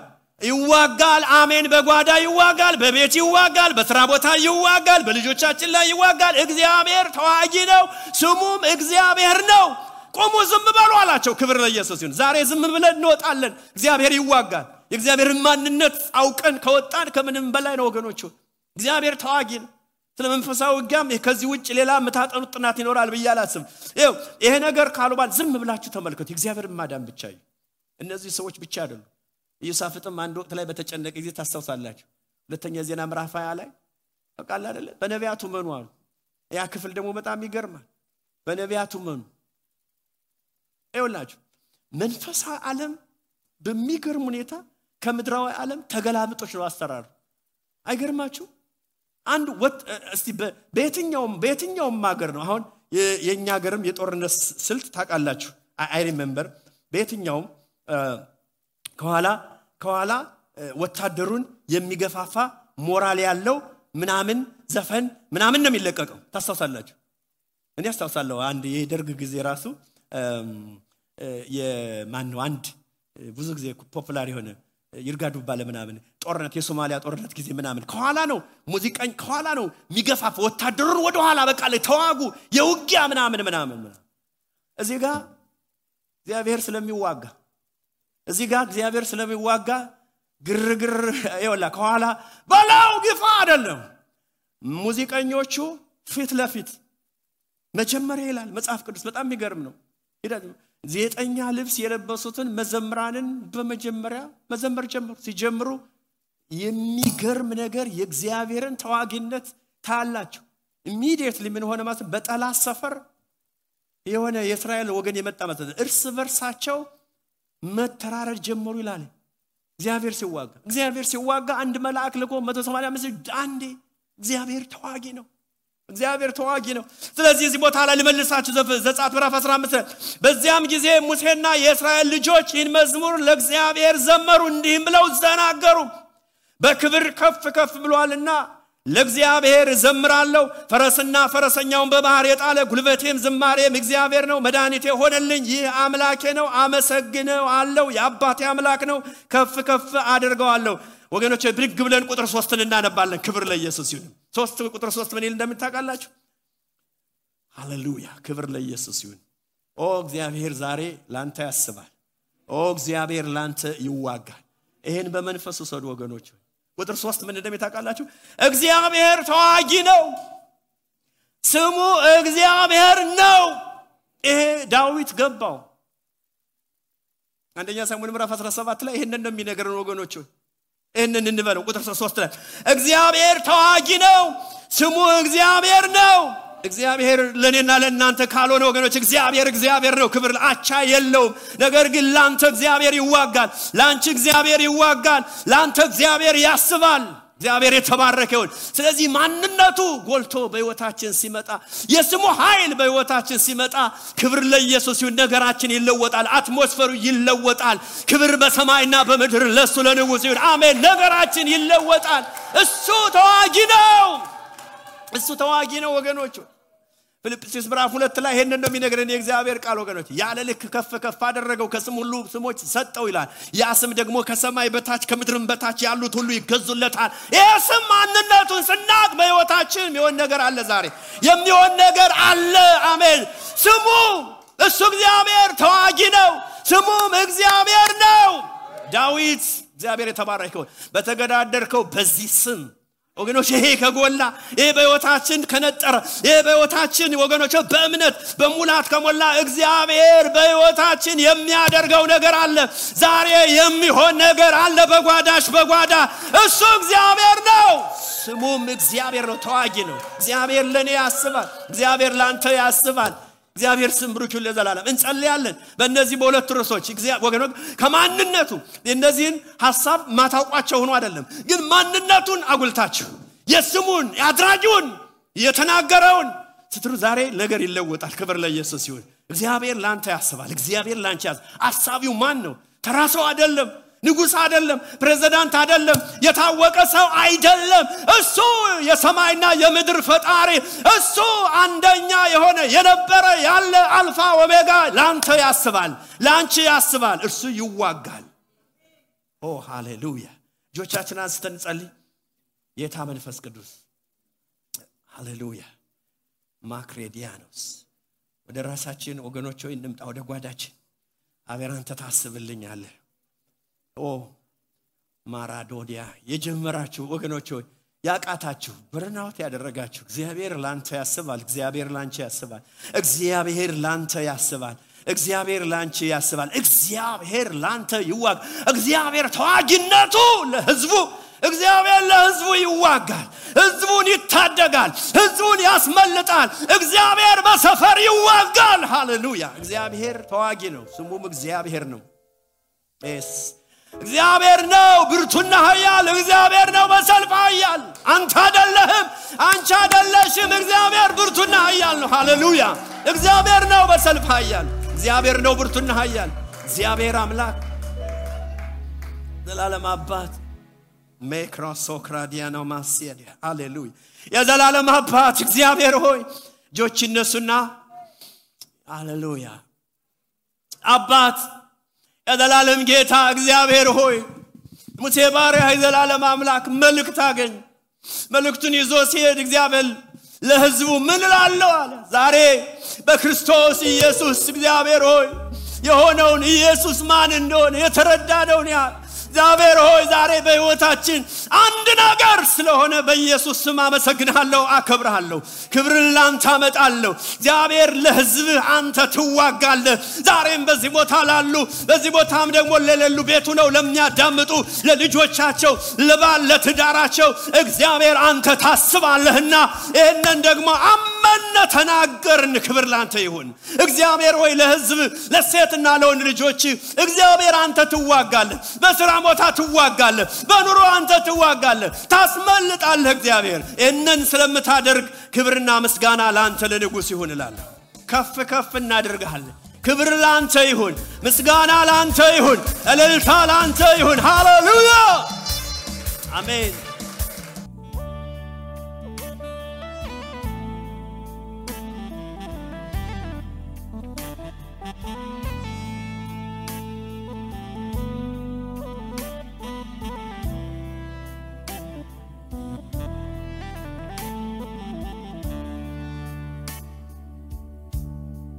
አሜን። በጓዳ ይዋጋል፣ በቤት ይዋጋል፣ በስራ ቦታ ይዋጋል፣ በልጆቻችን ላይ ይዋጋል። እግዚአብሔር ተዋጊ ነው። ስሙም እግዚአብሔር ነው። ቆሙ፣ ዝም በሉ አላቸው። ክብር ለኢየሱስ ይሁን። ዛሬ ዝም ብለን እንወጣለን። እግዚአብሔር ይዋጋል። የእግዚአብሔርን ማንነት አውቀን ከወጣን ከምንም በላይ ነው ወገኖቹ። እግዚአብሔር ተዋጊ ነው። ስለመንፈሳዊ ውጊያም ከዚህ ውጭ ሌላ መታጠኑት ጥናት ይኖራል ብያላስም። ይሄ ነገር ካሉባል ዝም ብላችሁ ተመልከቱ። እግዚአብሔርን ማዳን ብቻ ነው። እነዚህ ሰዎች ብቻ አይደሉም። ኢዮሳፍጥም አንድ ወቅት ላይ በተጨነቀ ጊዜ ታስተውሳላችሁ። ሁለተኛ ዜና ምዕራፍ 20 ላይ ተቃል አይደለ? በነቢያቱ መኑ አሉ። ያ ክፍል ደግሞ በጣም ይገርማል። በነቢያቱ መኑ ይውላችሁ። መንፈሳዊ ዓለም በሚገርም ሁኔታ ከምድራዊ ዓለም ተገላብጦች ነው አስተራሩ። አይገርማችሁ? አንድ እስቲ በየትኛውም ሀገር ነው አሁን የኛ ሀገርም የጦርነት ስልት ታውቃላችሁ። አይ ሪሜምበር በየትኛውም ከኋላ ወታደሩን የሚገፋፋ ሞራል ያለው ምናምን ዘፈን ምናምን ነው የሚለቀቀው። ታስተውሳላችሁ? እኔ አስተውሳለሁ። አንድ የደርግ ጊዜ ራሱ የማን ነው አንድ ብዙ ጊዜ ፖፑላር የሆነ ይርጋዱባ ለምናምን ጦርነት የሶማሊያ ጦርነት ጊዜ ምናምን ከኋላ ነው ሙዚቃኝ ከኋላ ነው ሚገፋፍ ወታደሩን ወደ ኋላ በቃ ለተዋጉ የውጊያ ምናምን እዚህ ጋር እግዚአብሔር ስለሚዋጋ እዚህ ጋር እግዚአብሔር ስለሚዋጋ ግርግር ይወላ ከኋላ ባላው ግፋ አይደለም ሙዚቀኞቹ ፊት ለፊት መጀመሪያ ይላል መጽሐፍ ቅዱስ በጣም የሚገርም ነው ዘጠኛ ልብስ የለበሱትን መዘምራንን በመጀመሪያ መዘመር ጀመሩ ሲጀምሩ የሚገርም ነገር የእግዚአብሔርን ተዋጊነት ታላችሁ immediately ምን ሆነ ማለት በጠላት ሰፈር የሆነ የእስራኤል ወገን የመጣ ማለት እርስ በርሳቸው መተራረድ ጀመሩ ይላል እግዚአብሔር ሲዋጋ አንድ መልአክ ልኮ 185 አንዴ እግዚአብሔር ተዋጊ ነው ስለዚህ እዚህ ቦታ ላይ ልመልሳችሁ ዘጸአት ምዕራፍ 15 በዚያም ጊዜ ሙሴና የእስራኤል ልጆች ይህን መዝሙር ለእግዚአብሔር ዘመሩ እንዲህም ብለው ተናገሩ በክብር ከፍ ብሏልና ለእግዚአብሔር ዘምራለሁ ፈረስና ፈረሰኛውን በባህር የጣለ ጉልበቴም ዝማሬም እግዚአብሔር ነው መድኃኒቴ ሆነልኝ ይህ አምላኬ ነው አመሰግነው አለው የአባቴ አምላክ ነው ከፍ አድርገዋለሁ ወገኖቼ ብድግ ብለን ቁጥር 3ን እናነባለን ክብር ለኢየሱስ ይሁን 3 ቁጥር 3 ምን ይል እንደምታውቃላችሁ ሃሌሉያ ክብር ለኢየሱስ ይሁን ኦ እግዚአብሔር ዛሬ ላንተ ያስባል ኦ እግዚአብሔር ላንተ ይዋጋል ይሄን በመንፈስ ወሰዱ ወገኖቼ ቁጥር 3 ምን እንደምታውቃላችሁ እግዚአብሔር ተዋጊ ነው ስሙ እግዚአብሔር ነው ይሄ ዳዊት ገባው አንደኛ ሳሙኤል ምዕራፍ 17 ላይ ይሄንን ነው የሚነገረን ወገኖቼ እነን እንበለው ቁጥር 3 ላይ እግዚአብሔር ተዋጊ ነው ስሙ እግዚአብሔር ነው እግዚአብሔር ለኔና ለእናንተ ካልሆነ ወገኖች እግዚአብሔር ነው ክብር አቻ የለውም ነገር ግን ላንተ እግዚአብሔር ይዋጋል ላንቺ እግዚአብሔር ይዋጋል ላንተ እግዚአብሔር ያስባል እግዚአብሔር የተባረከ ይሁን ስለዚህ ማንነቱ ጎልቶ በህይወታችን ሲመጣ የስሙ ኃይል በህይወታችን ሲመጣ ክብር ለኢየሱስ ይሁን ነገራችን ይለወጣል አትሞስፈሩ ይለወጣል ክብር በሰማይና በምድር ለሱ ለንጉስ ይሁን አሜን ነገራችን ይለወጣል እሱ ተዋጊ ነው ወገኖች ፊልጵስዩስ ምዕራፍ 2 ላይ ይሄንን ነው የሚነግረን የእግዚአብሔር ቃል ወገኖች ያለ ልክ ከፍ አደረገው ከስም ሁሉ ስሞች ሰጠው ይላል ያ ስም ደግሞ ከሰማይ በታች ከምድርም በታች ያሉት ሁሉ ይገዙለታል የስም ማንነቱን ስናቅ በህይወታችን የሚሆን ነገር አለ ዛሬ የሚሆን ነገር አለ አሜን ስሙ እሱ እግዚአብሔር ተዋጊ ነው ስሙም እግዚአብሔር ነው ዳዊት እግዚአብሔር የተባረከው በተገዳደርከው በዚህ ስም ወገኖች ይሄ ከጎላ ይሄ በህይወታችን ከነጠረ ይሄ በህይወታችን ወገኖች በእምነት በሙላት ከሞላ እግዚአብሔር በህይወታችን የሚያደርገው ነገር አለ ዛሬ የሚሆን ነገር አለ በጓዳ እሱ እግዚአብሔር ነው ስሙም እግዚአብሔር ነው ተዋጊ ነው እግዚአብሔር ለኔ ያስባል እግዚአብሔር ላንተ ያስባል እግዚአብሔር ስም ብሩክ ይሁን ለዘላለም እንጸልያለን በእነዚህ በሁለት ርዕሶች ወገኖች ከማንነቱ እነዚህን ሐሳብ ማታውቋቸው ሆኖ አይደለም ግን ማንነቱን አጉልታችሁ የስሙን ያድራጁን የተናገረውን ስትሩ ዛሬ ነገር ይለወጣል ክብር ለኢየሱስ ይሁን እግዚአብሔር ላንተ ያስባል እግዚአብሔር ላንቺ አሳቢው ማን ነው ተራሰው አይደለም ንጉስ አይደለም ፕሬዝዳንት አይደለም የታወቀ ሰው አይደለም እሱ የሰማይና የምድር ፈጣሪ እሱ አንደኛ የሆነ የነበረ ያለ አልፋ ኦሜጋ ላንተ ያስባል ላንቺ ያስባል እርሱ ይዋጋል ኦ ሃሌሉያ ጆቻችንን አንስተን ጸልይ ጌታ መንፈስ ቅዱስ ሃሌሉያ ማክሬዲያኖስ ወደ ራሳችን ወገኖች ሆይ እንምጣ ወደ ጓዳችን አብረን አንተ ታስብልኛለህ ኦ ማራዶዲያ የጀመራችሁ ወገኖች ሆይ ያቃታችሁ በርናውት ያደረጋችሁ እግዚአብሔር ላንተ ያስባል እግዚአብሔር ላንቺ ያስባል እግዚአብሔር ላንተ ያስባል እግዚአብሔር ላንቺ ያስባል እግዚአብሔር ላንተ ይዋጋ እግዚአብሔር ተዋጊነቱ ለሕዝቡ እግዚአብሔር ለሕዝቡ ይዋጋል ሕዝቡን ይታደጋል ሕዝቡን ያስመልጣል እግዚአብሔር በሰፈር ይዋጋል ሃሌሉያ እግዚአብሔር ተዋጊ ነው ስሙም እግዚአብሔር ነው እግዚአብሔር ነው ብርቱና ኃያል እግዚአብሔር ነው በሰልፍ ኃያል አንተ አይደለህም አንቺ አይደለሽም እግዚአብሔር ብርቱና ኃያል ነው ሃሌሉያ እግዚአብሔር ነው በሰልፍ ኃያል እግዚአብሔር ነው ብርቱና ኃያል እግዚአብሔር አምላክ ዘላለም አባት ሜክሮሶክራዲያኖ ማሲያዲ ሃሌሉያ የዘላለም አባት እግዚአብሔር ሆይ ጆች እነሱና ሃሌሉያ አባት የዘላለም ጌታ እግዚአብሔር ሆይ ሙሴ ባሪያ የዘላለም አምላክ መልእክት አገኘ መልእክቱን ይዞ ሲሄድ እግዚአብሔር ለሕዝቡ ምን እላለሁ አለ ዛሬ በክርስቶስ ኢየሱስ እግዚአብሔር ሆይ የሆነውን ኢየሱስ ማን እንደሆነ የተረዳነው ያ እግዚአብሔር ሆይ ዛሬ በሕይወታችን አንድ ነገር ስለሆነ በኢየሱስ ስም አመሰግናለሁ አከብራለሁ ክብርን ላንተ አመጣለሁ እግዚአብሔር ለሕዝብህ አንተ ትዋጋለህ ዛሬም በዚህ ቦታ ላሉ በዚህ ቦታም ደግሞ ለሌሉ ቤቱ ነው ለሚያዳምጡ ለልጆቻቸው ለባል ለትዳራቸው እግዚአብሔር አንተ ታስባለህና ይሄንን ደግሞ አመነ ተናገርን ክብር ላንተ ይሁን እግዚአብሔር ሆይ ለሕዝብ ለሴትና ለወንድ ልጆች እግዚአብሔር አንተ ትዋጋለህ በስራ ቦታ ትዋጋለህ በኑሮ አንተ ትዋጋለህ ታስመልጣለህ እግዚአብሔር እነን ስለምታደርግ ክብርና ምስጋና ላንተ ለንጉስ ይሁን እላለሁ ከፍ ከፍ እናደርጋለን ክብር ላንተ ይሁን ምስጋና ላንተ ይሁን እልልታ ላንተ ይሁን ሃሌሉያ አሜን